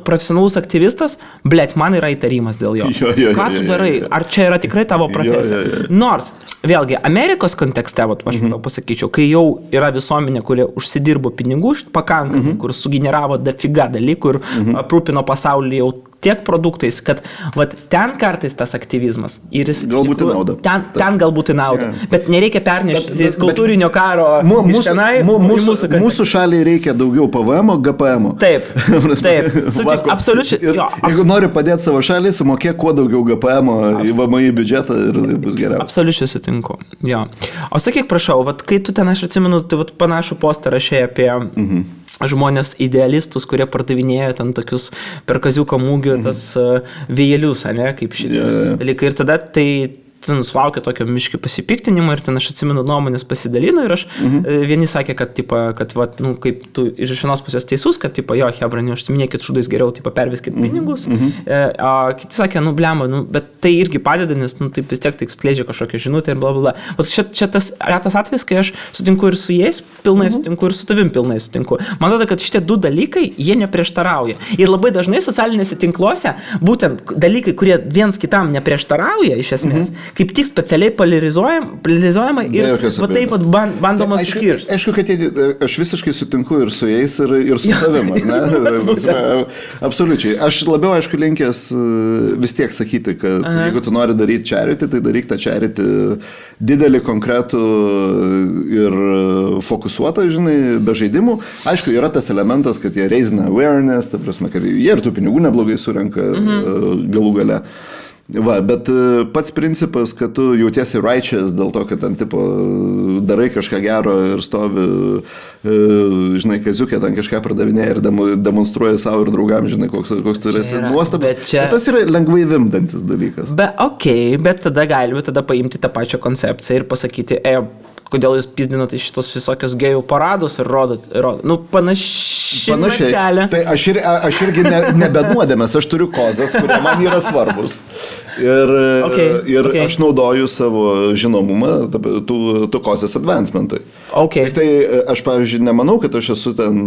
profesionalus aktyvistas, blet, man yra įtarimas dėl jo. Ką tu darai? Ar čia yra tikrai tavo profesija? Nors, vėlgi, Amerikos kontekste, aš pasakyčiau, kai jau yra visuomenė, kurie užsidirbo pinigų pakankamai, kur sugeneravo dafiga dalykų ir aprūpino pasaulį jau tiek produktais, kad ten kartais tas aktyvizmas ir jis galbūt nauda. Ten galbūt nauda. Bet nereikia pernešti kultūrinio karo iš tenai. Mūsų šaliai reikia daugiau PVM, GPM. Taip. Absoliučiai. Jeigu nori padėti savo šaliai, sumokėk kuo daugiau GPM į VMI biudžetą ir bus geriau. Absoliučiai sutinku. Jo. O sakyk, prašau, kai tu ten, aš atsimenu, tu panašų postą rašei apie žmonės idealistus, kurie pardavinėjo ten tokius per kaziuko mūgių tas vėjelius, kaip šitie dalykai. Ir tada tai sulaukia tokio miškį pasipiktinimo ir ten aš atsimenu nuomonės pasidalino ir aš vieni sakė, kad kaip tu iš vienos pusės teisus, kad jo, hebra, neužsiminėkit šūdais geriau, perveskit pinigus, o kiti sakė, blemba, bet tai irgi padeda, nes taip vis tiek tai skleidžia kažkokią žinutę ir blablabla. Čia tas retas atvejis, kai aš sutinku ir su jais pilnai sutinku ir su tavim pilnai sutinku. Man atrodo, kad šitie du dalykai, jie neprieštarauja. Ir labai dažnai socialinėse tinkluose būtent dalykai, kurie viens kitam neprieštarauja iš esmės, kaip tik specialiai polarizuojama ir va taip bandoma skirti. Aišku, kad aš visiškai sutinku ir su jais, ir su savim, ne? Absoliučiai. Aš labiau, aišku, linkęs vis tiek sakyti, kad jeigu tu nori daryti charity, tai daryk tą charity didelį, konkretų ir fokusuotą, žinai, be žaidimų. Aišku, yra tas elementas, kad jie raisina awareness, ta prasme, kad jie ir tų pinigų neblogai surenka galų gale. Va, bet pats principas, kad tu jautiesi righteous dėl to, kad ten tipo darai kažką gero ir stovi, žinai, kaziukė ten kažką pardavinėja ir demonstruoja savo ir draugam, žinai, koks tu esi nuostabus. Bet tas yra lengvai vimdantis dalykas. Bet tada paimti tą pačią koncepciją ir pasakyti, kodėl jūs pizdinote šitos visokios gėjų paradus ir rodot. Nu, panašiai. Tai aš irgi nebenuodėmės, aš turiu kozas, kurie man yra svarbus. Ir aš naudoju savo žinomumą tų kozės advancementui. Tik tai aš, pavyzdžiui, nemanau, kad aš esu ten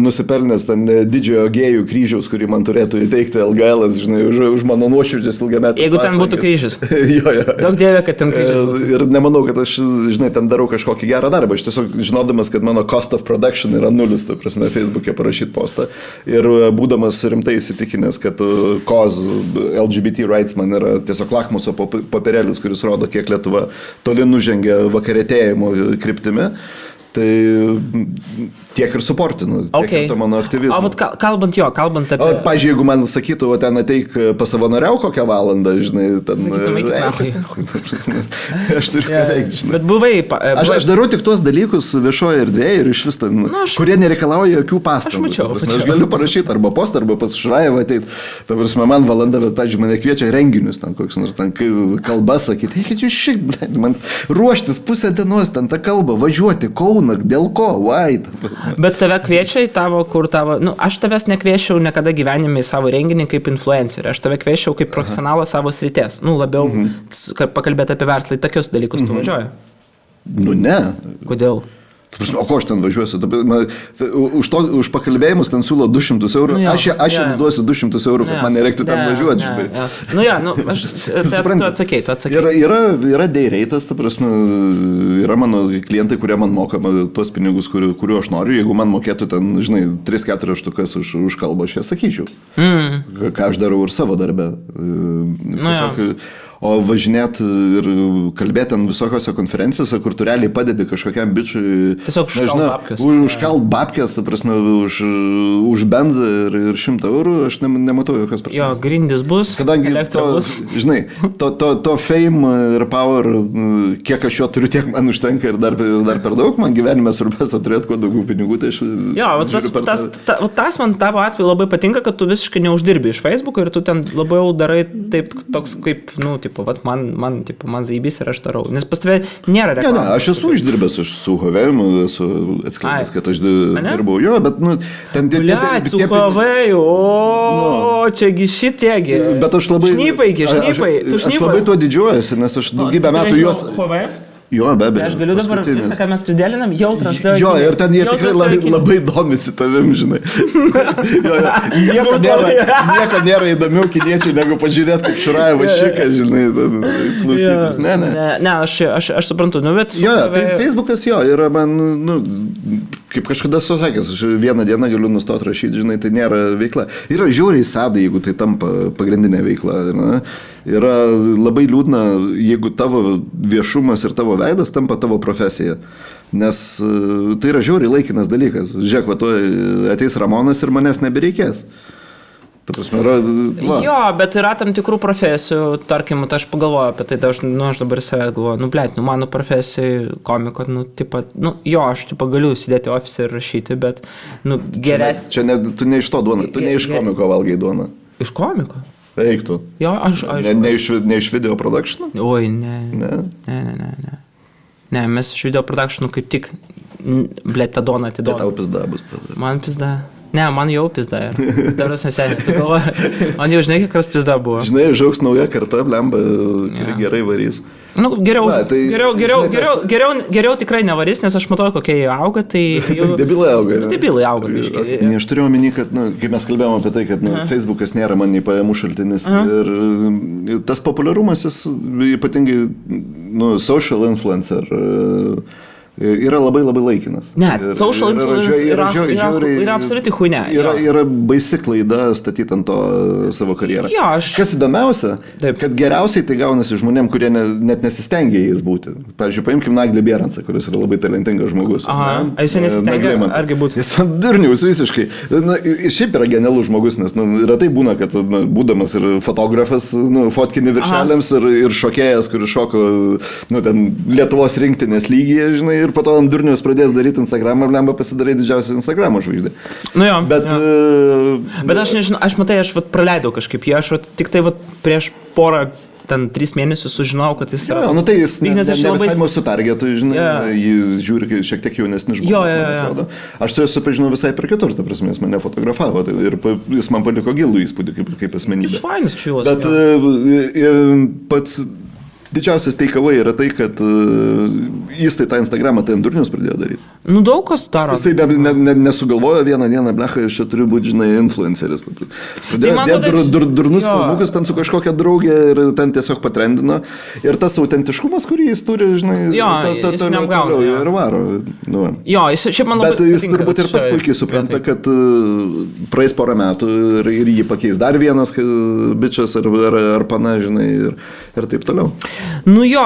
nusipelnęs ten didžiojo gėjų kryžiaus, kurį man turėtų įteikti LGL, žinai, už mano nuoširdžius ilgametį. Jeigu ten būtų kryžius. Jo. Daug dievė, kad ten kryžius būtų. Ir nemanau, kad aš, žinai, ten darau kažkokį gerą darbą. Aš tiesiog žinodamas, kad mano cost of production yra 0, tai prasme, Facebook'e parašyti postą. Ir būdamas rimtai įsitikinęs, kad cause LGBT rights man yra tiesiog lakmuso papirėlis, kuris rodo, kiek Lietuva toli nužengia vakarėtėjimo kryptimi. Tai tiek ir suportinu, tiek ir to mano aktyvizmo. O kalbant apie... Pavyzdžiui, jeigu man sakytų, ten ateik pasavanoriau kokią valandą, žinai, ten... Aš turiu ką veikti, žinai. Bet buvai... Aš darau tik tuos dalykus viešoje erdvėje ir iš vis ten, kurie nereikalauja jokių pastangų. Aš galiu parašyti arba postą, arba pas Šraevą ateit. Ta prasme, man valanda, bet, pavyzdžiui, mane kviečia renginius, ten koks nors ten kalbas sakyti. Eikit jūs šik, man ruoštis pusę dienos, ten tą kalbą, važiuoti, Kauną, dėl ko, why? Bet tave kviečia į tavo, aš tavęs nekviečiau niekada gyvenime į savo renginį kaip influencerį, aš tave kviečiau kaip profesionalą savo srities, labiau pakalbėti apie verslą, į tokius dalykus tu važiuoji. Nu ne. Kodėl? O ko aš ten važiuosiu? Už pakalbėjimus ten siūlo 200 eurų. Aš jiems duosiu 200 eurų, kad man nereiktų ten važiuoti. Tu atsakei. Yra day rate'as, ta prasme, yra mano klientai, kurie man moka tuos pinigus, kuriuo aš noriu. Jeigu man mokėtų ten, žinai, 3-4 štukas už kalbą, aš ją sakyčiau. Ką aš darau ir savo darbę. O važinėti ir kalbėti ant visokiose konferencijose, kur tu realiai padedi kažkokiam bičiui... Tiesiog užkalt babkės, ta prasme, už benzą ir 100 eurų, aš nematau jokios prasmės. Jo, grindis bus, kadangi bus. Žinai, to fame ir power, kiek aš jo turiu, tiek man užtenka ir dar per daug, man gyvenime svarbiausia turėti kuo daugiau pinigų, tai aš... Jo, tas man tavo atveju labai patinka, kad tu visiškai neuždirbi iš Facebook'o ir tu ten labiau darai taip, toks kaip, man zaibys ir aš darau. Nes pas tave nėra reklamos. Ne, aš esu išdirbęs, aš su Huawei'u esu atskleidęs, kad aš dirbau. Jo, bet, ten... Su Huawei'u, čiagi šitiegi. Bet aš labai... Šnypai. Aš labai tuo didžiuojuosi, nes aš daugybę metų juos... Huawei'us? Jo, be abejo. Aš galiu dabar viską, ką mes prisidėlinam, jau transliuoju. Jo, ir ten jie tikrai labai domisi tavim, žinai. Nieko nėra įdomiau kiniečiai, negu pažiūrėti, kaip Šraevas šiką, žinai, klausytis. Ne, aš suprantu, bet... Jo, tai Facebookas jo, yra man, kaip kažkada susakęs, aš vieną dieną galiu nustoti rašyti, žinai, tai nėra veikla. Yra žiauriai sadai, jeigu tai tampa pagrindinė veikla. Ne? Yra labai liūdna, jeigu tavo viešumas ir tavo veidas tampa tavo profesija. Nes tai yra žiauriai laikinas dalykas. Žiūrėk, va, ateis Ramonas ir manęs nebereikės. Ta prasme, jo, bet yra tam tikrų profesijų, tarkim, aš pagalvoju apie tai, aš dabar savęs galvoju, mano profesijai komiko, aš galiu sėdėti ofise ir rašyti, bet, geresnė. Čia tu ne iš to duona, tu ne iš komiko valgai duona. Iš komiko? Eiktų. Jo, aš. Ne iš video production'o? Oi, ne. Ne, mes iš video production'o kaip tik, tą doną atiduodam. Tai tau pizda bus tada. Man pizda. Ne, man jau pizda. Dabar seniai, tu galvoji, man jau žinai, kiek pizda buvo. Žinai, žauks nauja karta, blemba, kuri gerai varys. Nu, geriau tikrai nevarys, nes aš matau, kokie jie auga, tai... Debilai auga. Debilai auga, biškai. Ne, aš turėjau omeny, kad, kaip mes kalbėjome apie tai, kad Facebookas nėra man nei pajamų šaltinis. Ir tas populiarumas, jis ypatingai, social influencer... yra labai laikinas. Ne, social influence yra absoliuti huinė. Yra baisi klaida statyti ant to savo karjerą. Jo, Kas įdomiausia, kad geriausiai tai gaunasi žmonėm, kurie net nesistengia jais būti. Pavyzdžiui, paimkim Naglį Bierancą, kuris yra labai talentingas žmogus. Aha, jis nesistengia, argi būtų? Jis durnius visiškai. Šiaip yra genialus žmogus, nes retai būna, kad būdamas ir fotografas, fotkini viršeliams ir šokėjas, kuris šoko Lietuvos rinktinės lygyje, žinai, ir po to ant durnius pradės daryti Instagramą, lemba pasidarai didžiausią Instagramo žvaigždę. Nu jo. Bet aš nežinau, aš praleidau kažkaip jį, aš tik tai prieš porą, 3 mėnesius sužinojau, kad jis yra... Jo, tai jis ne visai mūsų targetų, žinai, jį žiūri šiek tiek jaunesnis žmogus, man atrodo. Aš su juo supažinau visai per kitur, ta prasme, jis mane fotografavo ir jis man paliko gilų įspūdį kaip asmenybė. Jis fainas čiūvas. Bet pats... Didžiausias takeaway yra tai, kad jis tą Instagramą ant durnius pradėjo daryti. Nu, daug kas daro. Jisai nesugalvojo vieną dieną, blecha, aš čia turiu būti, žinai, influenceris. Jis pradėjo dėti durnus filmukus ten su kažkokia draugė ir ten tiesiog patrendino. Ir tas autentiškumas, kurį jis turi, žinai, jis neapgauna. Ir varo. Jo, jis šiaip man labai... Bet jis turbūt ir pats puikiai supranta, kad praeis porą metų ir jį pakeis dar vienas bičias ar pana, žinai, ir taip toliau. Nu jo,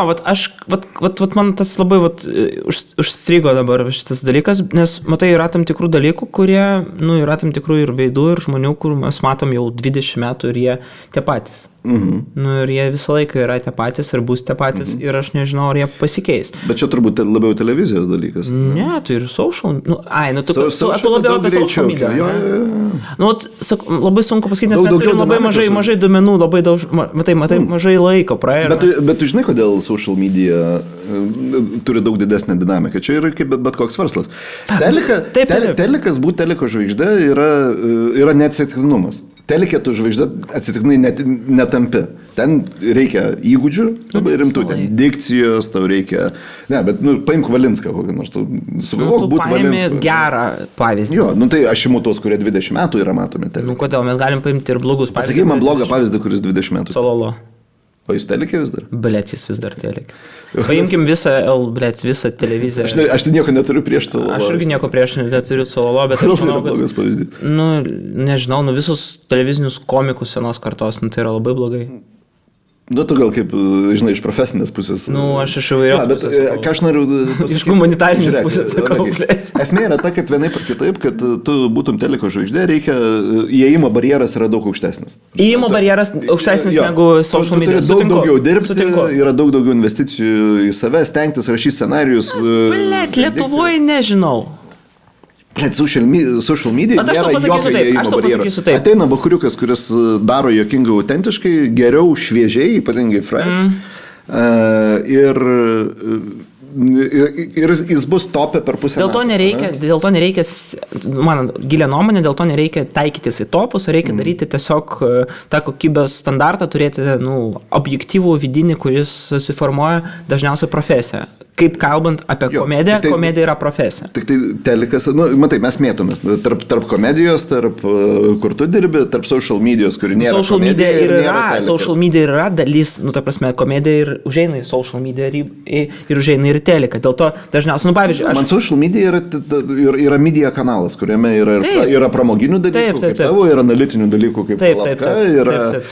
man tas labai užstrigo dabar šitas dalykas, nes matai, yra tam tikrų dalykų, kurie, yra tam tikrų ir veidų, ir žmonių, kur mes matom jau 20 metų ir jie tie patys. Ir jie visą laiką yra tie patys ir bus tie patys ir aš nežinau, ar jie pasikeis. Bet čia turbūt labiau televizijos dalykas. Ne, tai ir social... Tu labiau apie social media. Labai sunku pasakyti, nes mes turim labai mažai duomenų, labai daug, mažai laiko praėjo. Bet tu žinai, kodėl social media turi daug didesnę dinamiką. Čia yra kaip bet koks verslas. Telikas būti teliko žvaigždė yra neatsitiktinumas. Telikė tu žvaigždė atsitiktinai netampi. Ten reikia įgūdžių, labai rimtų, ten dikcijos, tau reikia... Ne, bet, paimk Valinską kokį nors, tu sugalvok būti Valinską. Tu paimi gerą pavyzdį. Jo, tai aš imu tos, kurie 20 metų yra matomi telikė. Kodėl, mes galim paimti ir blogus pavyzdį. Pasakyk man blogą pavyzdį, kuris 20 metų. Sololo. O jis telikė vis dar? Blėt, jis vis dar telikė. Paimkim visą televiziją. Aš tai nieko neturiu prieš Sololo. Aš irgi nieko prieš neturiu Sololo, bet aš manau, kad... Nežinau, visus televizinius komikus senos kartos, tai yra labai blogai. Tu gal kaip, žinai, iš profesinės pusės. Aš iš įvairios pusės. Ką aš noriu pasakyti? Iš humanitarinės pusės sakau. Esmė yra ta, kad vienaip ar kitaip, kad tu būtum teliko žvaigždė, reikia, įėjimo barjeras yra daug aukštesnis. Įėjimo barjeras aukštesnis negu social media. Tu turi daug daugiau dirbti, yra daug daugiau investicijų į save, stengtis, rašyti scenarijus. Lietuvoje nežinau. Social media nėra jokio įėjimo barjero. Ateina bakuriukas, kuris daro jokingai autentiškai, geriau, šviežiai, ypatingai fresh. Ir jis bus topė per pusę metų. Dėl to nereikia, mano gilia nuomonė, dėl to nereikia taikytis į topus, reikia daryti tiesiog tą kokybės standartą, turėti objektyvų vidinį, kuris susiformuoja dažniausiai profesiją. Kaip kalbant apie komediją, komedija yra profesija. Tik tai telikas, matai, mes mėtomės tarp komedijos, tarp kur tu dirbi, tarp social medijos, kuri nėra komedija ir nėra telika. Social media yra dalis, ta prasme, komedija ir užeina į social media ir užeina ir telika. Dėl to dažniausiai, pavyzdžiui, man social media yra media kanalas, kuriame yra pramoginių dalykų, kaip tavo, yra analitinių dalykų, kaip Lapka,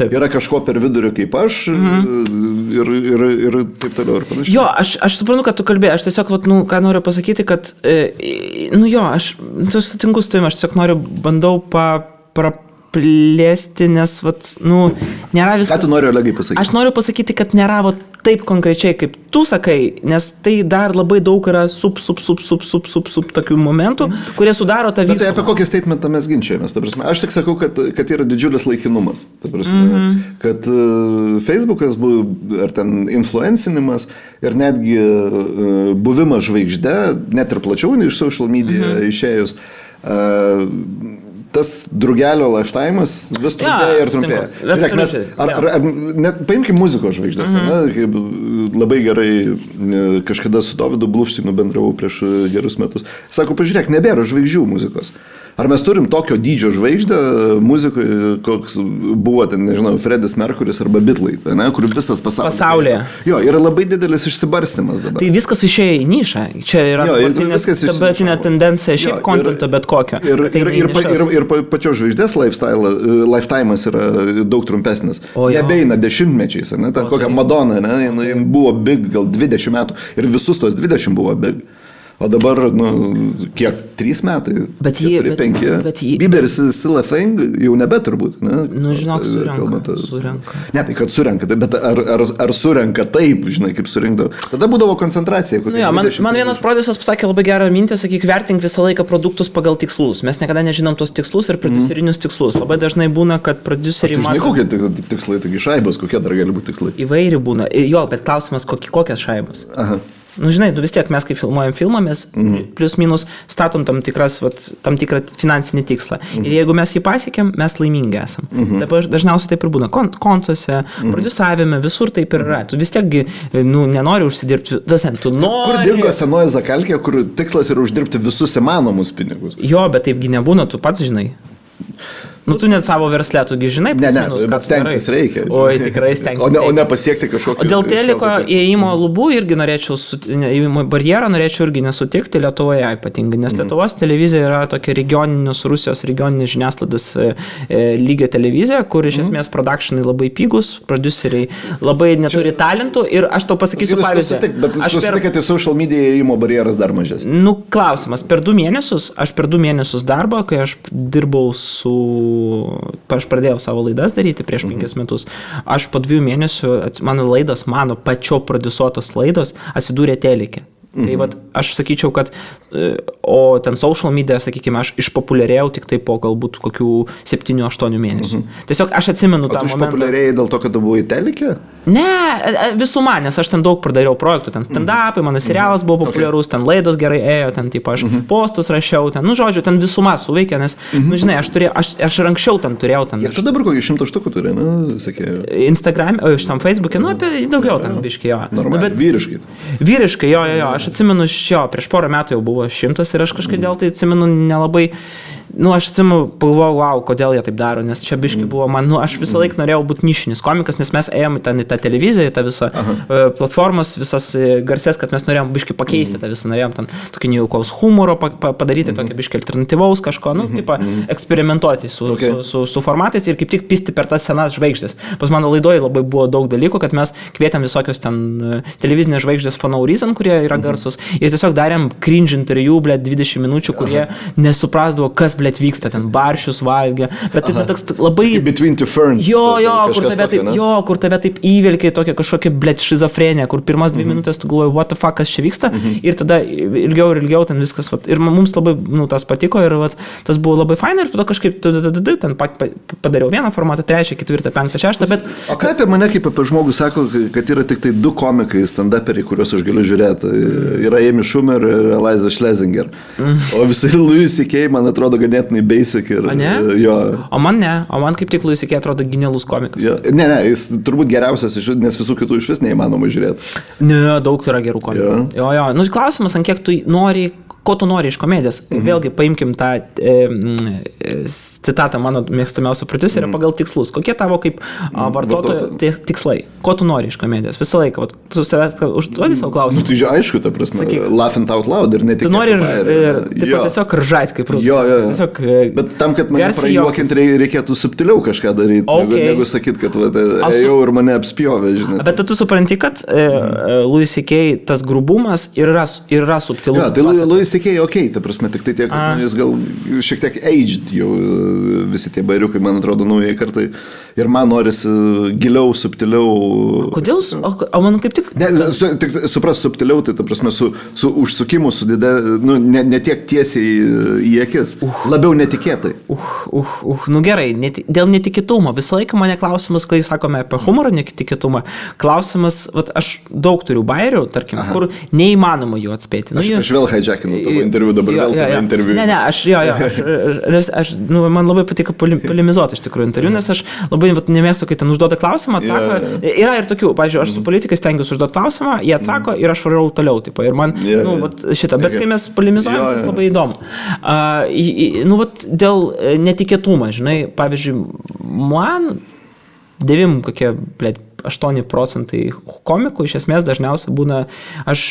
yra kažko per vidurį kaip aš ir taip toliau ir panašiai. Jo, aš suprantu, kad tu kalbėjai, aš tiesiog, ką noriu pasakyti, kad, aš sutinku su tavimi, aš tiesiog bandau praplėsti, nes, nėra viskas... Ką tu nori, Olegai, pasakyti? Aš noriu pasakyti, kad nėra taip konkrečiai, kaip tu sakai, nes tai dar labai daug yra tokių momentų, kurie sudaro tą visą. Bet tai apie kokį statementą mes ginčiamės, ta prasme. Aš tik sakau, kad yra didžiulis laikinumas. Ta prasme, kad Facebookas, ar ten influencinimas ir netgi buvimas žvaigžde, net ir plačiau nei iš social media išėjus, tas drugelio lifetime'as vis trumpėja ir trumpėja. Žiūrėk, mes, paimkim muzikos žvaigždės, kaip labai gerai kažkada su Dovydu Bluvštinu bendravau prieš gerus metus. Sako, pažiūrėk, nebėra žvaigždžių muzikos. Ar mes turim tokio dydžio žvaigždę muzikoje, koks buvo ten, nežinau, Freddis Mercury's arba Beatlai, ne, kur visas pasaulyje. Jo, yra labai didelis išsibarstymas dabar. Tai viskas išėjo į nišą. Čia yra dabartinė tendencija šiaip kontento bet kokio. Ir pačios žvaigždės lifetime'as yra daug trumpesnis. Nebeina dešimtmečiais, ne, ta kokia Madonna, ne, jin buvo big gal 20 metų ir visus tos 20 buvo big. O dabar, kiek, 3 metai? Bet 5. Bieberis still a thing, jau nebe turbūt. Ne? Žinok, surenka. Ne, tai kad surenka, bet ar surenka taip, žinai, kaip surinkdavo. Tada būdavo koncentracija. Man vienas prodiuseris pasakė labai gerą mintį, sakyk, vertink visą laiką produktus pagal tikslus. Mes niekada nežinom tos tikslus ir prodiuserinius tikslus. Labai dažnai būna, kad prodiuseriai mato... Žinai, kokie tikslai, taigi šaibos, kokie dar gali būti tikslai? Įvairi būna. Jo, bet klausimas, kokias šaibos. Aha. Žinai, vis tiek mes, kai filmuojam filmą, mes plius minus statom tam tikrą finansinį tikslą. Ir jeigu mes jį pasiekėm, mes laimingi esam. Dabar dažniausiai taip ir būna. Koncuose, prodiusavime, visur taip ir yra. Tu vis tiek nenori užsidirbti. Tu nori... Kur dingo senoji zakalkė, kur tikslas yra uždirbti visus įmanomus pinigus? Jo, bet taipgi nebūna, tu pats žinai. Tu net savo versle, tugi žinai, bet stengtis reikia. Oi, tikrai stengtis. O ne pasiekti kažkokį... O dėl teliko įėjimo lubų irgi norėčiau, įėjimo barjerą norėčiau irgi nesutikti Lietuvoje ypatingai, nes Lietuvos televizija yra tokia Rusijos regioninės žiniasklaidos lygio televizija, kur iš esmės productionai labai pigus, produceriai labai neturi talentų ir aš tau pasakysiu pavyzdį. Bet tu sutik, kad į social media įėjimo barjeras dar mažesnis. Klausimas, per 2 mėnesius darbo, kai aš dirbau aš pradėjau savo laidas daryti prieš 5 metus. Aš po 2 mėnesių, mano pačio prodiusuotos laidos atsidūrė telike. Tai aš sakyčiau, kad o ten social media, sakykime, aš išpopuliarėjau tik tai po galbūt kokių 7-8 mėnesių. Tiesiog aš atsimenu tą momentą. O tu išpopuliarėjai dėl to, kad tu buvai telike? Ne, visuma, nes aš ten daug pradariau projektų, ten stand-upai, mano serialas buvo populiarus, ten laidos gerai ėjo, ten taip aš postus rašiau, ten, žodžiu, ten visuma suveikė, nes, žinai, aš ir anksčiau ten turėjau. Ir tu dabar kokį 100 štukų turi, sakė? Instagram, šitam Facebook'e, apie daugiau ten biškai, jo. Normaliai, vyriškai. Vyriškai, jo, aš atsimenu, prieš porą metų jau buvo 100 ir aš kažkodėl tai atsimenu nelabai, aš atsimenu, pagalvojau, wow, kodėl jie taip daro, nes čia biškai buvo man, aš visą laiką norėjau būti nišinis komikas, nes mes ėjom ten į tą televiziją, į tą visą platformas, visas garsės, kad mes norėjom biškai pakeisti tą visą, norėjom ten tokį nejaukaus humoro padaryti, tokį biškai alternatyvaus kažko, eksperimentuoti su formatais ir kaip tik pisti per tas senas žvaigždės. Pas mano laidoje labai buvo daug dalykų, kad mes kvietėm visokios ten televizinės žvaigždės for no reason, kurie yra garsus, ir tiesiog darėm cringe interviu, 20 minučių, kurie nesuprasdavo, kas, vyksta, ten baršius valgė, bet tai toks labai... Between two ferns. Kur tave taip įvelkia tokia kažkokia, šizofrenija, kur pirmas 2 minutės tu galvoji, what the fuck, kas čia vyksta, ir tada ilgiau ten viskas, ir mums labai, tas patiko, ir tas buvo labai faina, ir tada kažkaip ten padariau vieną formatą, 3, 4, 5, 6, bet... O ką apie mane kaip apie žmogų sako, kad yra tik tai 2 komikai, stand-uperiai, kuriuos aš galiu žiūrėti, yra Amy Schumer ir Eliza Schlesinger, o visai Louis C.K. man atrodo ganėtinai basic ir... Jo. O man kaip tik Louis C.K. atrodo genialus komikas. Jo. Ne, jis turbūt geriausias, nes visų kitų iš vis neįmanoma žiūrėti. Ne, daug yra gerų komikų. Jo. Klausimas, ant kiek tu nori... Ko tu nori iš komedijos? Vėlgi paimkim tą citatą mano mėgstamiausio prodiuserio pagal tikslus. Kokie tavo kaip vartotojo tikslai? Ko tu nori iš komedijos? Visą laiką. Tu užduodi savo klausimą. Tai aišku, ta prasme, laughing out loud ir netikėtai. Tu nori ir tiesiog ržait kaip rusas. Jo. Bet tam, kad mane prajuokinti, reikėtų subtiliau kažką daryti, negu sakyti, kad ėjau ir mane apspjovė, žinai. Bet tu supranti, kad Louis C.K. tas grubumas yra subtilus. Tai Louis C.K. ta prasme, tik tai tiek, jis gal šiek tiek aged jau visi tie bairiukai, man atrodo, naujai kartai. Ir man norisi giliau, subtiliau. Kodėl? O man kaip tik... Supras subtiliau, tai ta prasme, su užsukimu, ne tiek tiesiai į akis. Labiau netikėtai. Gerai, dėl netikėtumo. Visą laiką mane klausimas, kai sakome apie humorą netikėtumą, klausimas, aš daug turiu bairių, tarkim, kur neįmanoma jų atspėti. Aš vėl hijackinu tavo interviu, dabar vėl tavo interviu. Ne, aš man labai patiko polemizuoti iš tikrųjų interviu, nes aš labai nemėgstu, kai ten užduoda klausimą, atsako. Yra ir tokių, pavyzdžiui, aš su politikais stengiuosi užduoti klausimą, jie atsako ir aš varau toliau, tipo, ir man, šitą, bet kai mes polemizuojam, tas labai įdomu. Dėl netikėtumą, žinai, pavyzdžiui, man 8% komikų iš esmės dažniausiai būna, aš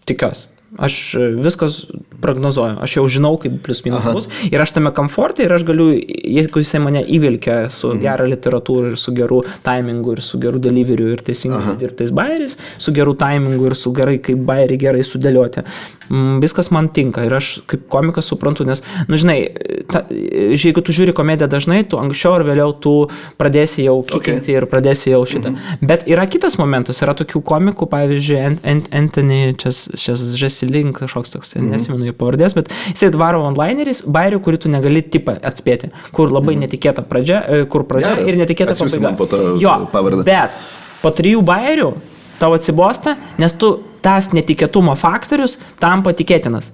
tikiuosi. Aš viskas prognozuoju, aš jau žinau, kaip plius minus bus ir aš tame komforte ir aš galiu, jeigu jisai mane įvilkia su gerą literatūrą ir su geru timingu ir su geru deliveriu ir teisingai dirbtais bairiais, su geru timingu ir su gerai, kaip bairiai gerai sudėlioti. Viskas man tinka ir aš kaip komikas suprantu, nes, žinai, jeigu tu žiūri komediją dažnai, tu anksčiau ar vėliau tu pradėsi jau kikinti ir pradėsi jau šitą. Bet yra kitas momentas, yra tokių komikų, pavyzdžiui, Anthony Jeselnik, kažkoks toks, nesimenu jo pavardės, bet jisai dvaro onlineris, bairių, kurį tu negali tipą atspėti, kur labai netikėta pradžia, ir netikėta pabaiga. Jo, bet po 3 bairių tau atsibosta, nes tu tas netikėtumo faktorius tampa tikėtinas.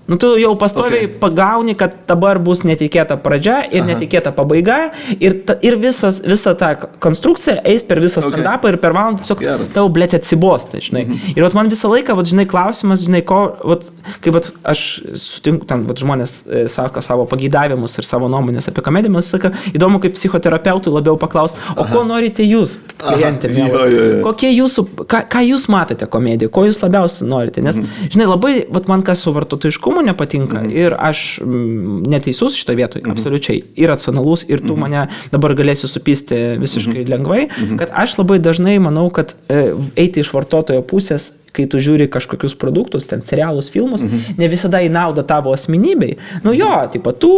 Tu jau pastoviai pagauni, kad dabar bus netikėta pradžia ir netikėta pabaiga ir visa ta konstrukcija eis per visą stand-upą ir per valandą tiesiog tau, blėt, atsibosta, žinai. Ir man visą laiką, žinai, klausimas, žinai, kaip aš sutinku, ten žmonės sako savo pageidavimus ir savo nuomonės apie komediją, man sako, įdomu, kaip psichoterapeutui labiau paklausti, o ko norite jūs, klientė, mielas? Kokie jūsų, ką jūs matote komediją, ko jūs labiausiai norite? Nes, žinai, labai, man kas su vartotojiškumu nepatinka ir aš neteisus šitą vietoj, absoliučiai, ir racionalus, ir tu mane dabar galėsi supisti visiškai lengvai, kad aš labai dažnai manau, kad eiti iš vartotojo pusės, kai tu žiūri kažkokius produktus, ten serialus, filmus, ne visada į naudą tavo asmenybei. Tipo, tu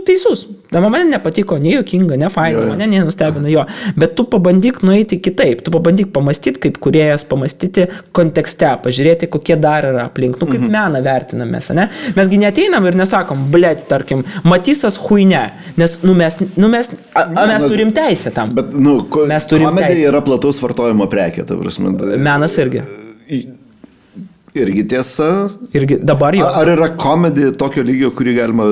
teisus. Man nepatiko, ne juokinga, ne faina, mane nenustebina jo. Bet tu pabandyk nueiti kitaip. Tu pabandyk pamastyti, kaip kūrėjas, pamastyti kontekste, pažiūrėti, kokie dar yra aplink. Kaip meną vertinamės, ne? Mesgi neateinam ir nesakom, blėt, tarkim, Matysas huine, nes mes turim teisę tam. Bet, komedija yra plataus vartojimo prekė, ta prasme. Menas irgi. Irgi tiesa. Irgi dabar jau. Ar yra komedija tokio lygio, kurį galima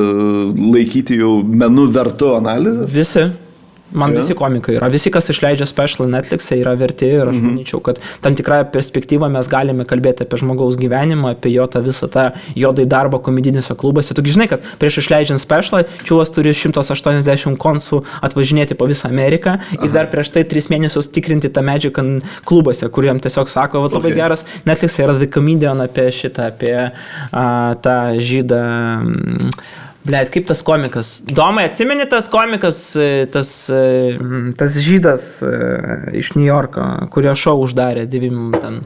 laikyti jau menu vertu analizės? Visi. Man visi komikai yra. Visi, kas išleidžia special Netflix'e, yra verti ir aš manyčiau, kad tam tikrąją perspektyvą mes galime kalbėti apie žmogaus gyvenimą, apie jo tą visą tą jodai darbą komedinėse klubuose. Tu žinai, kad prieš išleidžiant specialą, čiūvas turi 180 konsų atvažinėti po visą Ameriką ir dar prieš tai 3 mėnesius tikrinti tą medžiagą klubuose, kuriem tiesiog sako, labai geras Netflix'e yra The Comedian apie šitą, apie tą žydą. Blet, kaip tas komikas? Domai, atsimeni tas komikas, tas žydas iš New Yorko, kurio šou uždarė 9 ten.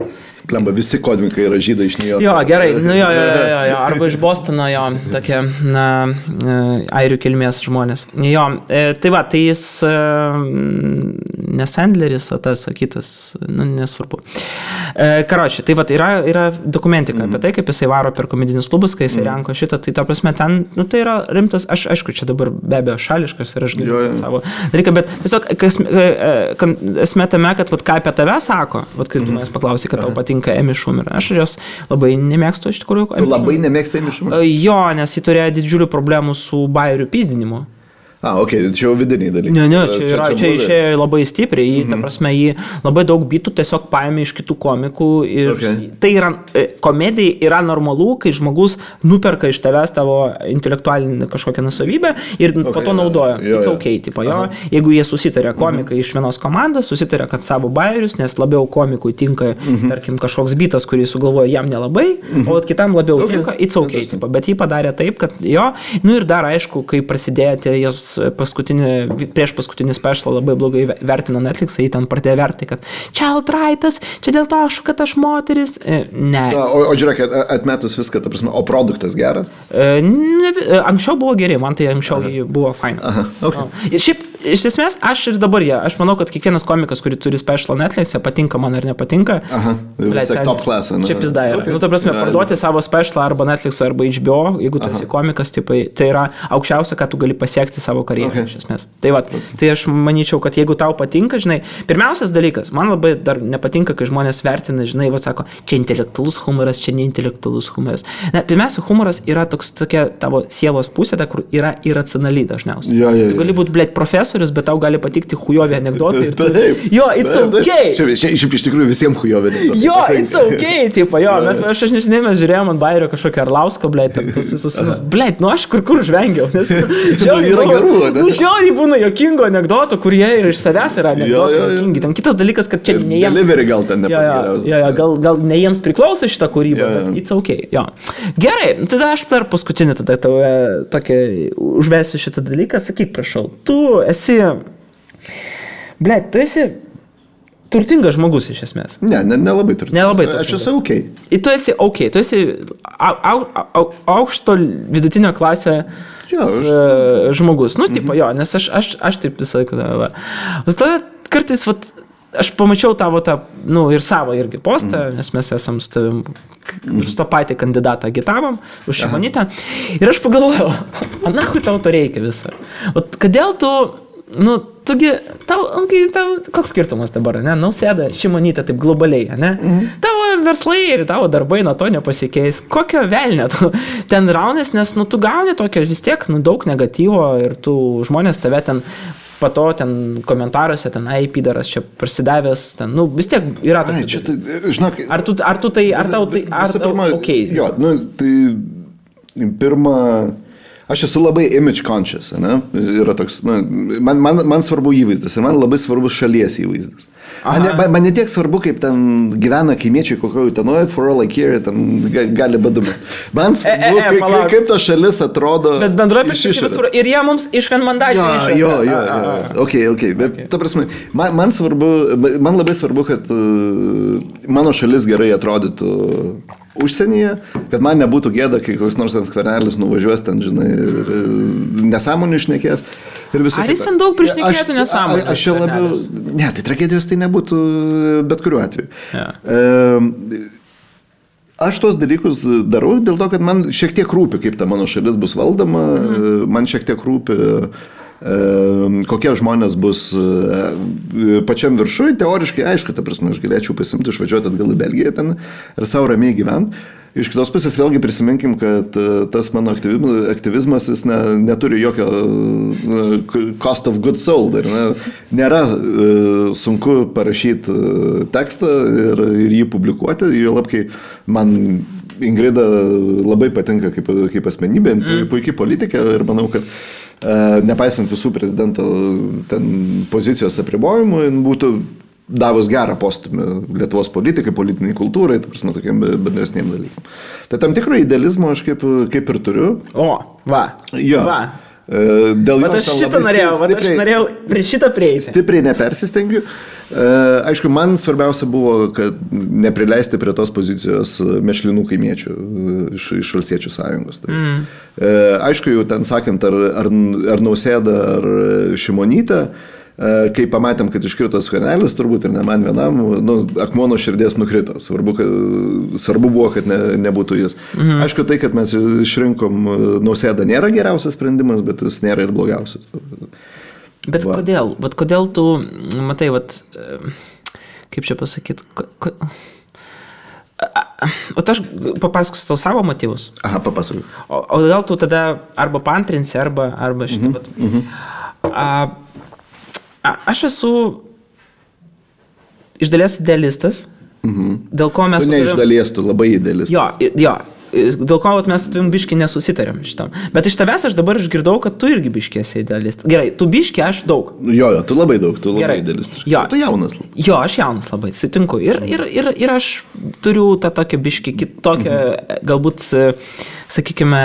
Plemba, visi komikai yra žydai iš New Yorko. Jo, gerai, jo, arba iš Bostono, jo, tokie, airių kilmės žmonės. Jo, tai va, tai jis ne Sandleris, o tas kitas, nesvarbu. Karoči, tai va, yra dokumentika apie tai, kaip jisai varo per komedinius klubus, kai jisai renko šitą, tai ta prasme ten, tai yra rimtas, aš aišku, čia dabar be abejo šališkas ir aš galiu savo dalyką, bet tiesiog esmė tame, kad ką apie tave sako, kai tu manęs paklausai, kad tau patinka Amy Schumer. Aš jos labai nemėgstu iš tikrųjų. Tu labai nemėgsti Amy Schumer? Jo, nes jį turėjo didžiulių problemų su bairių pyzdinimu. Čia jau vidiniai dalykai. Ne, čia išėjo labai stipriai, ta prasme, jį labai daug bitų tiesiog paėmė iš kitų komikų ir tai yra, komedija yra normalu, kai žmogus nuperka iš tavęs tavo intelektualinį kažkokią nusavybę ir po to naudoja. It's okay, tipo, jeigu jie susitarė komikai iš vienos komandos, susitarė, kad savo bairius, nes labiau komikui tinka, tarkim, kažkoks bitas, kurį sugalvoja jam nelabai, o kitam labiau tinka, it's okay, tipo, bet jį padarė taip, kad ir dar aišku, kai prasidėjo jos prieš paskutinį specialą labai blogai vertino Netflix'ą, jį ten pradėjo verti, kad child rightas, čia dėl to, kad aš moteris. Ne. O žiūrėk, atmetus viską, ta prasme, o produktas geras? Anksčiau buvo geri, man tai anksčiau buvo faina. Ir šiaip iš esmės, aš ir dabar aš manau, kad kiekvienas komikas, kurį turi special Netflix'e, patinka man ar nepatinka. Aha, vis tiek top class. Čia pizda yra. Okay. Ta prasme, parduoti savo special arba Netflix'o arba HBO, jeigu tu esi komikas, tipai, tai yra aukščiausia, ką tu gali pasiekti savo karjerą, iš esmės. Tai va, tai aš manyčiau, kad jeigu tau patinka, žinai, pirmiausias dalykas, man labai dar nepatinka, kai žmonės vertina, žinai, va sako, čia intelektualus humoras, čia neintelektualus humoras. Ne, pirmiausia, humoras yra tokia tavo sielos pusė, kur yra iracionali dažniausiai. Tu gali būti, blėt, profesorius, bet tau gali patikti hujovi anekdotai. Jo, it's okay. Šiaip iš tikrųjų visiems hujovi anekdotai. Jo, it's okay, tipo, jo. Aš nežinai, mes žiūrėjom ant Bairio kažkokią Arlauską, blėt, tuos visus, blėt, nu aš kur žvengiau. Nes yra gerų, ne? Nu, žiauriai būna jokingų anekdotų, kurie ir iš savęs yra anekdotai jokingi. Ten kitas dalykas, kad čia ne jiems... Delivery gal ten nepats geriausias. Gal ne jiems priklauso šitą kūrybą, bet it's okay, jo. Gerai, tada aš dar paskutinį tada tau tokį užvesiu šitą dalyką, sakyk, prašau, tu esi, blėt, tu esi turtingas žmogus iš esmės. Nelabai turtingas. Nelabai turtingas. Aš esu okay. Ir tu esi okay, tu esi aukšto vidutinio klasė žmogus. Nu, tipo, jo, nes aš taip visą laiką. Tada kartais, vat, aš pamačiau tavo tą, nu, ir savo irgi postą, nes mes esam su tavim, su to patį kandidatą agitavom, už Šimonytę. Ir aš pagalvojau, o nahui tau to reikia visą. O kodėl tu, nu, tugi, tau, koks skirtumas dabar, ne? Nausėda, Šimonytė taip globaliai, ne? Tavo verslai ir tavo darbai nuo to nepasikeis. Kokio velnio tu ten raunės, nes, nu, tu gauni tokio vis tiek, nu, daug negatyvo ir tu žmonės tave ten pato ten komentaruose, ten pidaras čia prasidavęs, ten, nu, vis tiek yra tokia. Žinok, ar tau tai, okei. Jo, nu, tai pirma, aš esu labai image conscious, ne? Yra toks, nu, man svarbu įvaizdis ir man labai svarbus šalies įvaizdis. Man ne tiek svarbu, kaip ten gyvena kaimiečiai kokio Utenoje, for all I care, ten gali badumėti. Man svarbu, kaip ta šalis atrodo. Bet bendroje perspektyvos ir jie mums iš vienmandačių išėjo. Jo. Okay. Bet ta prasme, man labai svarbu, kad mano šalis gerai atrodytų užsienyje, kad man nebūtų gėda, kai koks nors ten Skvernelis nuvažiuos ten, žinai, ir nesąmonių šnekės. Ar jis ten daug prišnekėtų nesąmonę? Aš čia labiau... Ne, tai tragedijos tai nebūtų bet kuriuo atveju. Aš tos dalykus darau dėl to, kad man šiek tiek rūpi, kaip ta mano šalis bus valdoma, man šiek tiek rūpi, kokie žmonės bus pačiam viršui. Teoriškai, aišku, ta prasme, aš galėčiau pasimti, išvažiuoti atgal į Belgiją ten ir savo ramiai gyventi. Iš kitos pusės vėlgi prisiminkim, kad tas mano aktyvizmas jis neturi jokio cost of good soul. Nėra sunku parašyti tekstą ir jį publikuoti. Juolab, kai man Ingrida labai patinka kaip asmenybė, puikiai politikė ir manau, kad nepaisant visų prezidento pozicijos apribojimų, būtų davus gerą postumį Lietuvos politikai, politiniai kultūrai, ta prasme, tokiam bendresniem dalykam. Tai tam tikro idealizmo aš kaip ir turiu. O, va. Jo. Va. Dėl bet aš šitą norėjau prie šitą prieiti. Stipriai nepersistengiu. Aišku, man svarbiausia buvo, kad neprileisti prie tos pozicijos mešlinų kaimiečių iš Valstiečių sąjungos. Tai. Aišku, jau ten sakant, ar Nausėda, ar Šimonytė, kai pamatėm, kad iškrito Skvernelis, turbūt ir ne man vienam, akmuo nuo širdies nukrito. Svarbu buvo, kad nebūtų jis. Aišku, tai, kad mes išrinkom Nausėdą, nėra geriausias sprendimas, bet jis nėra ir blogiausias. Bet kodėl? Bet kodėl tu, matai, kaip čia pasakyti, o aš papasakosiu tau savo motyvus. Aha, papasakosiu. O gal tu tada arba paantrinsi, arba šitą. Aš esu iš dalies idealistas, dėl ko mes... Tu ne iš dalies, tu labai idealistas. Jo, dėl ko mes su tavim biškį nesusitarėm šitam. Bet iš tavęs aš dabar išgirdau, kad tu irgi biškį esi idealistas. Gerai, tu biškį, aš daug. Jo, tu labai daug, tu labai idealistas. Tu jaunas labai. Jo, aš jaunas labai, sutinku. Ir aš turiu tą tokią biškį kitokią, galbūt, sakykime,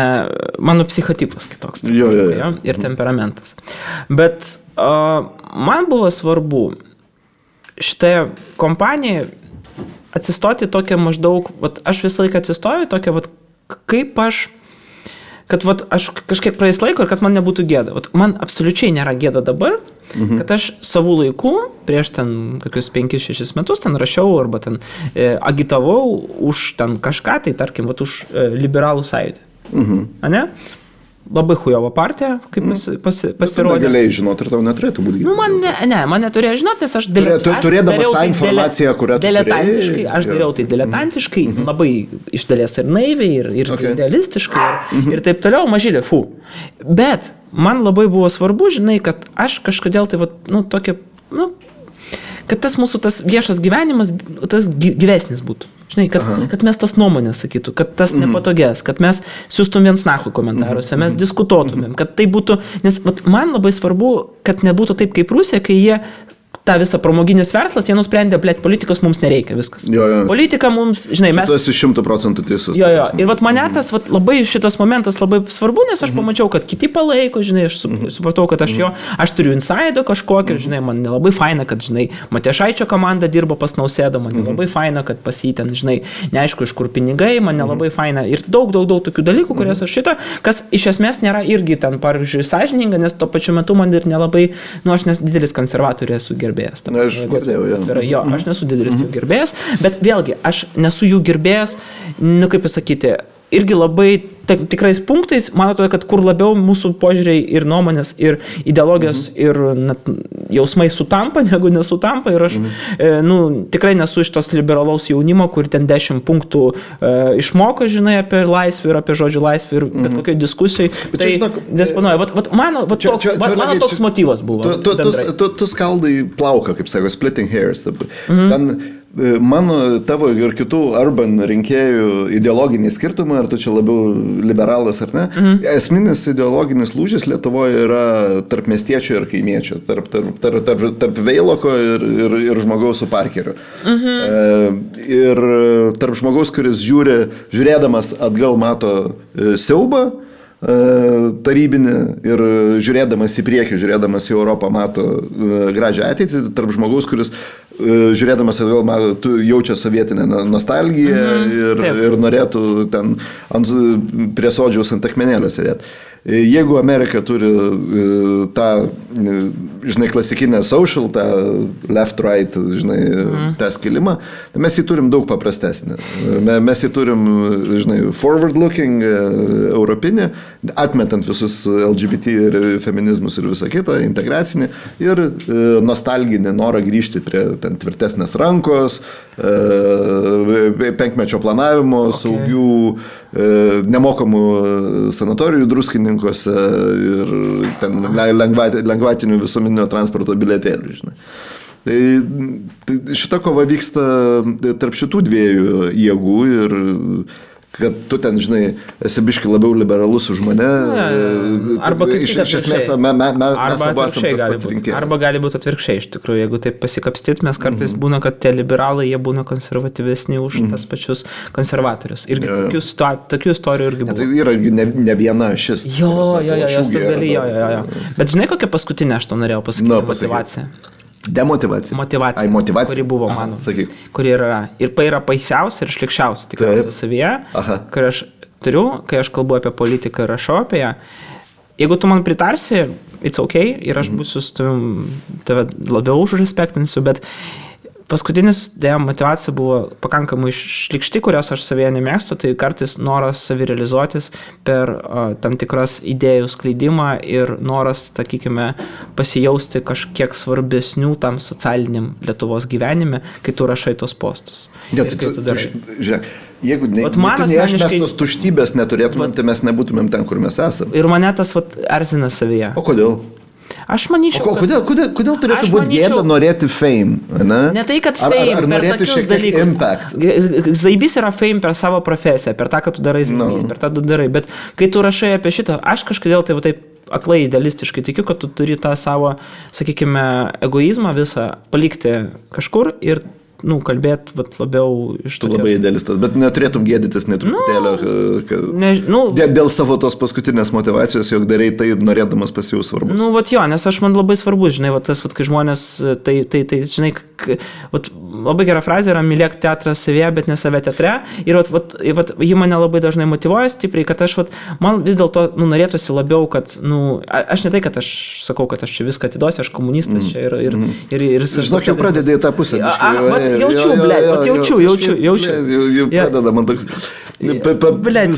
mano psichotipas kitoks. Jo. Ir temperamentas. Bet man buvo svarbu šitoje kompanijoje atsistoti tokią maždaug, aš visą laiką atsistoju tokią, kaip aš kad vat, aš kažkiek praeis laiko ir kad man nebūtų gėda. Vat, man absoliučiai nėra gėda dabar, kad aš savų laikų, prieš ten kokius 5-6 metus ten rašiau arba ten agitavau už ten kažką, tai tarkim, vat, už liberalų sąjūdį. Ane? Labai hujovo partija, kaip pasirodė. Negalėjai žinoti ir tau neturėtų būti. Nu, man neturėjo žinoti, nes aš turėdamas tą informaciją, kurią tu diletantiškai, aš dariau tai diletantiškai, labai iš dalies ir naiviai, ir idealistiškai, ir taip toliau, mažylė, Bet man labai buvo svarbu, žinai, kad aš kažkodėl tai, tokia, kad tas mūsų tas viešas gyvenimas, tas gyvesnis būtų. Žinai, kad mes tas nuomonės sakytų, kad tas nepatogės, kad mes siūstum viens nahui komentaruose, mes diskutuotumėm, kad tai būtų, nes man labai svarbu, kad nebūtų taip kaip Rusija, kai jie tą visą pramoginis verslas, jie nusprendė, politikos mums nereikia, viskas. Politika mums, žinai, mes... Tu esi 100% teisus. Ir mane tas labai šitas momentas labai svarbu, nes aš pamačiau, kad kiti palaiko, žinai, aš supratau, kad aš turiu insaido kažkokį, žinai, man nelabai faina, kad, žinai, Matijošaičio komanda dirba pas Nausėdą, man nelabai faina, kad pas jį ten, žinai, neaišku, iš kur pinigai, man nelabai faina ir daug tokių dalykų, kurias aš kas iš esmės nėra irgi ten, pavyzdžiui, sąžininga, nes tuo pačiu metu man ir nelabai, aš nes didelis konservatorių esu gerbėjęs. Aš girdėjau, aš nesu didelis jų gerbėjas, bet vėlgi, aš nesu jų gerbėjas, kaip pasakyti, irgi labai tikrais punktais, man atrodo, kad kur labiau mūsų požiūriai ir nuomonės, ir ideologijos, ir jausmai sutampa, negu nesutampa. Ir aš tikrai nesu iš tos liberalaus jaunimo, kur ten 10 punktų išmoko, žinai, apie laisvę ir apie žodžių laisvę ir bet kokioj diskusijai. Tai disponuoja. Mano toks motyvas buvo. Tu skaldai plauką, kaip sako, splitting hairs. Ten mano, tavo ir kitų urban rinkėjų ideologiniai skirtumai, ar tu čia labiau liberalas ar ne, esminis ideologinis lūžis Lietuvoje yra tarp miestiečio ir kaimiečio, tarp Veiloko ir žmogaus su Parkeriu. Ir tarp žmogaus, kuris žiūrėdamas atgal mato siaubą tarybinį ir žiūrėdamas į priekį, žiūrėdamas į Europą mato gražią ateitį, tarp žmogaus, kuris žiūrėdamas atgal jaučia sovietinę nostalgiją ir norėtų ten prie sodžiaus ant akmenėlio sėdėti. Jeigu Amerika turi tą, žinai, klasikinę social, tą left-right, žinai, tą skilimą, tai mes jį turim daug paprastesnį. Mes jį turim, žinai, forward-looking, europinį, atmetant visus LGBT ir feminizmus ir visą kitą, integracinį ir nostalginį norą grįžti prie ten tvirtesnės rankos, penkmečio planavimo, saugių, nemokamų sanatorijų druskininkuose ir ten lengvatinių visuomeninio transporto bilietėlių, žinai. Tai šita kova vyksta tarp šitų dviejų jėgų ir kad tu ten, žinai, esi biški labiau liberalus už mane. Arba kaip iš esmės mes abu esam tas pats rinkėjas. Arba gali būti atvirkščiai, iš tikrųjų, jeigu taip pasikapstyt, mes kartais būna, kad tie liberalai, jie būna konservatyvesni už tas pačius konservatorius. Irgi tokių istorijų irgi buvo. Tai yra ne viena šis. Jo. Bet žinai, kokią paskutinę aš to norėjau pasakyti, motivaciją. Demotivacija. Motivacija, kuri buvo mano. Kuri yra. Ir yra baisiausia ir šlikščiausia tikriausiai savyje, kur aš turiu, kai aš kalbu apie politiką ir rašau apie ją. Jeigu tu man pritarsi, it's okay, ir aš būsiu su tave labiau užrespektinsiu, bet paskutinis motivacija buvo pakankamai šlikšti, kurios aš savyje nemėgstu, tai kartais noras savirealizuotis per tam tikras idėjų skleidimą ir noras, sakykime, pasijausti kažkiek svarbesnių tam socialiniam Lietuvos gyvenime, kai tu rašai tos postus. Žiūrėk, jeigu aš tos tuštybės neturėtumėm, tai mes nebūtumėm ten, kur mes esame. Ir mane tas erzina savyje. O kodėl? Aš manyčiau, kodėl turėtų būti gėda norėti fame? Ne tai, kad fame, ar per tokius dalykus. Impact? Zaibys yra fame per savo profesiją, per tą, kad tu darai zaibys, per tą tu darai. Bet kai tu rašai apie šitą, aš kažkodėl tai taip aklai idealistiškai tikiu, kad tu turi tą savo, sakykime, egoizmą visą palikti kažkur ir kalbėti labiau iš to. Tu labai idealistas, bet neturėtum gėdytis netruputėlio, dėl savo tos paskutinės motivacijos, jog darai tai norėdamas pasijaus svarbus. Nes man labai svarbu, žinai, tas, kai žmonės, tai žinai, labai gera frazė yra mylėk teatrą savyje, bet ne save teatre. Ir ji mane labai dažnai motyvuoja stipriai, kad man vis dėlto norėtųsi labiau, kad, aš ne tai, kad aš sakau, kad aš čia viską atiduosiu, aš komunistas čia ir žinok, jau pradedai tą pusę. Jaučiu. Jau pradeda man toks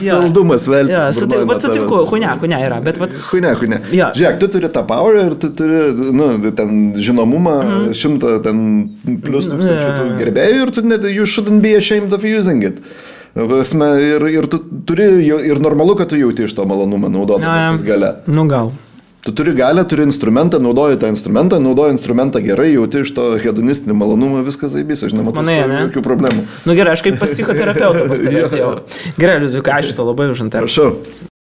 saldumas veltis. Sutinku, hunia yra, bet Hunia. Žiūrėk, tu turi tą power ir tu turi, ten žinomumą, 100 ten plus tūkstančių gerbėjų ir you shouldn't be ashamed of using it. Ir tu turi, ir normalu, kad tu jauti iš to malonumą naudodamas gale. Gal. Tu turi galę, turi instrumentą, naudoji tą instrumentą gerai, jauti iš to hedonistinį malonumą, viskas zaibys, aš nematau jokių problemų. Gerai, aš kaip pas psichoterapeutą pastebėjau. Gerai, Liudvikai, ačiū to labai už interviu. Prašau.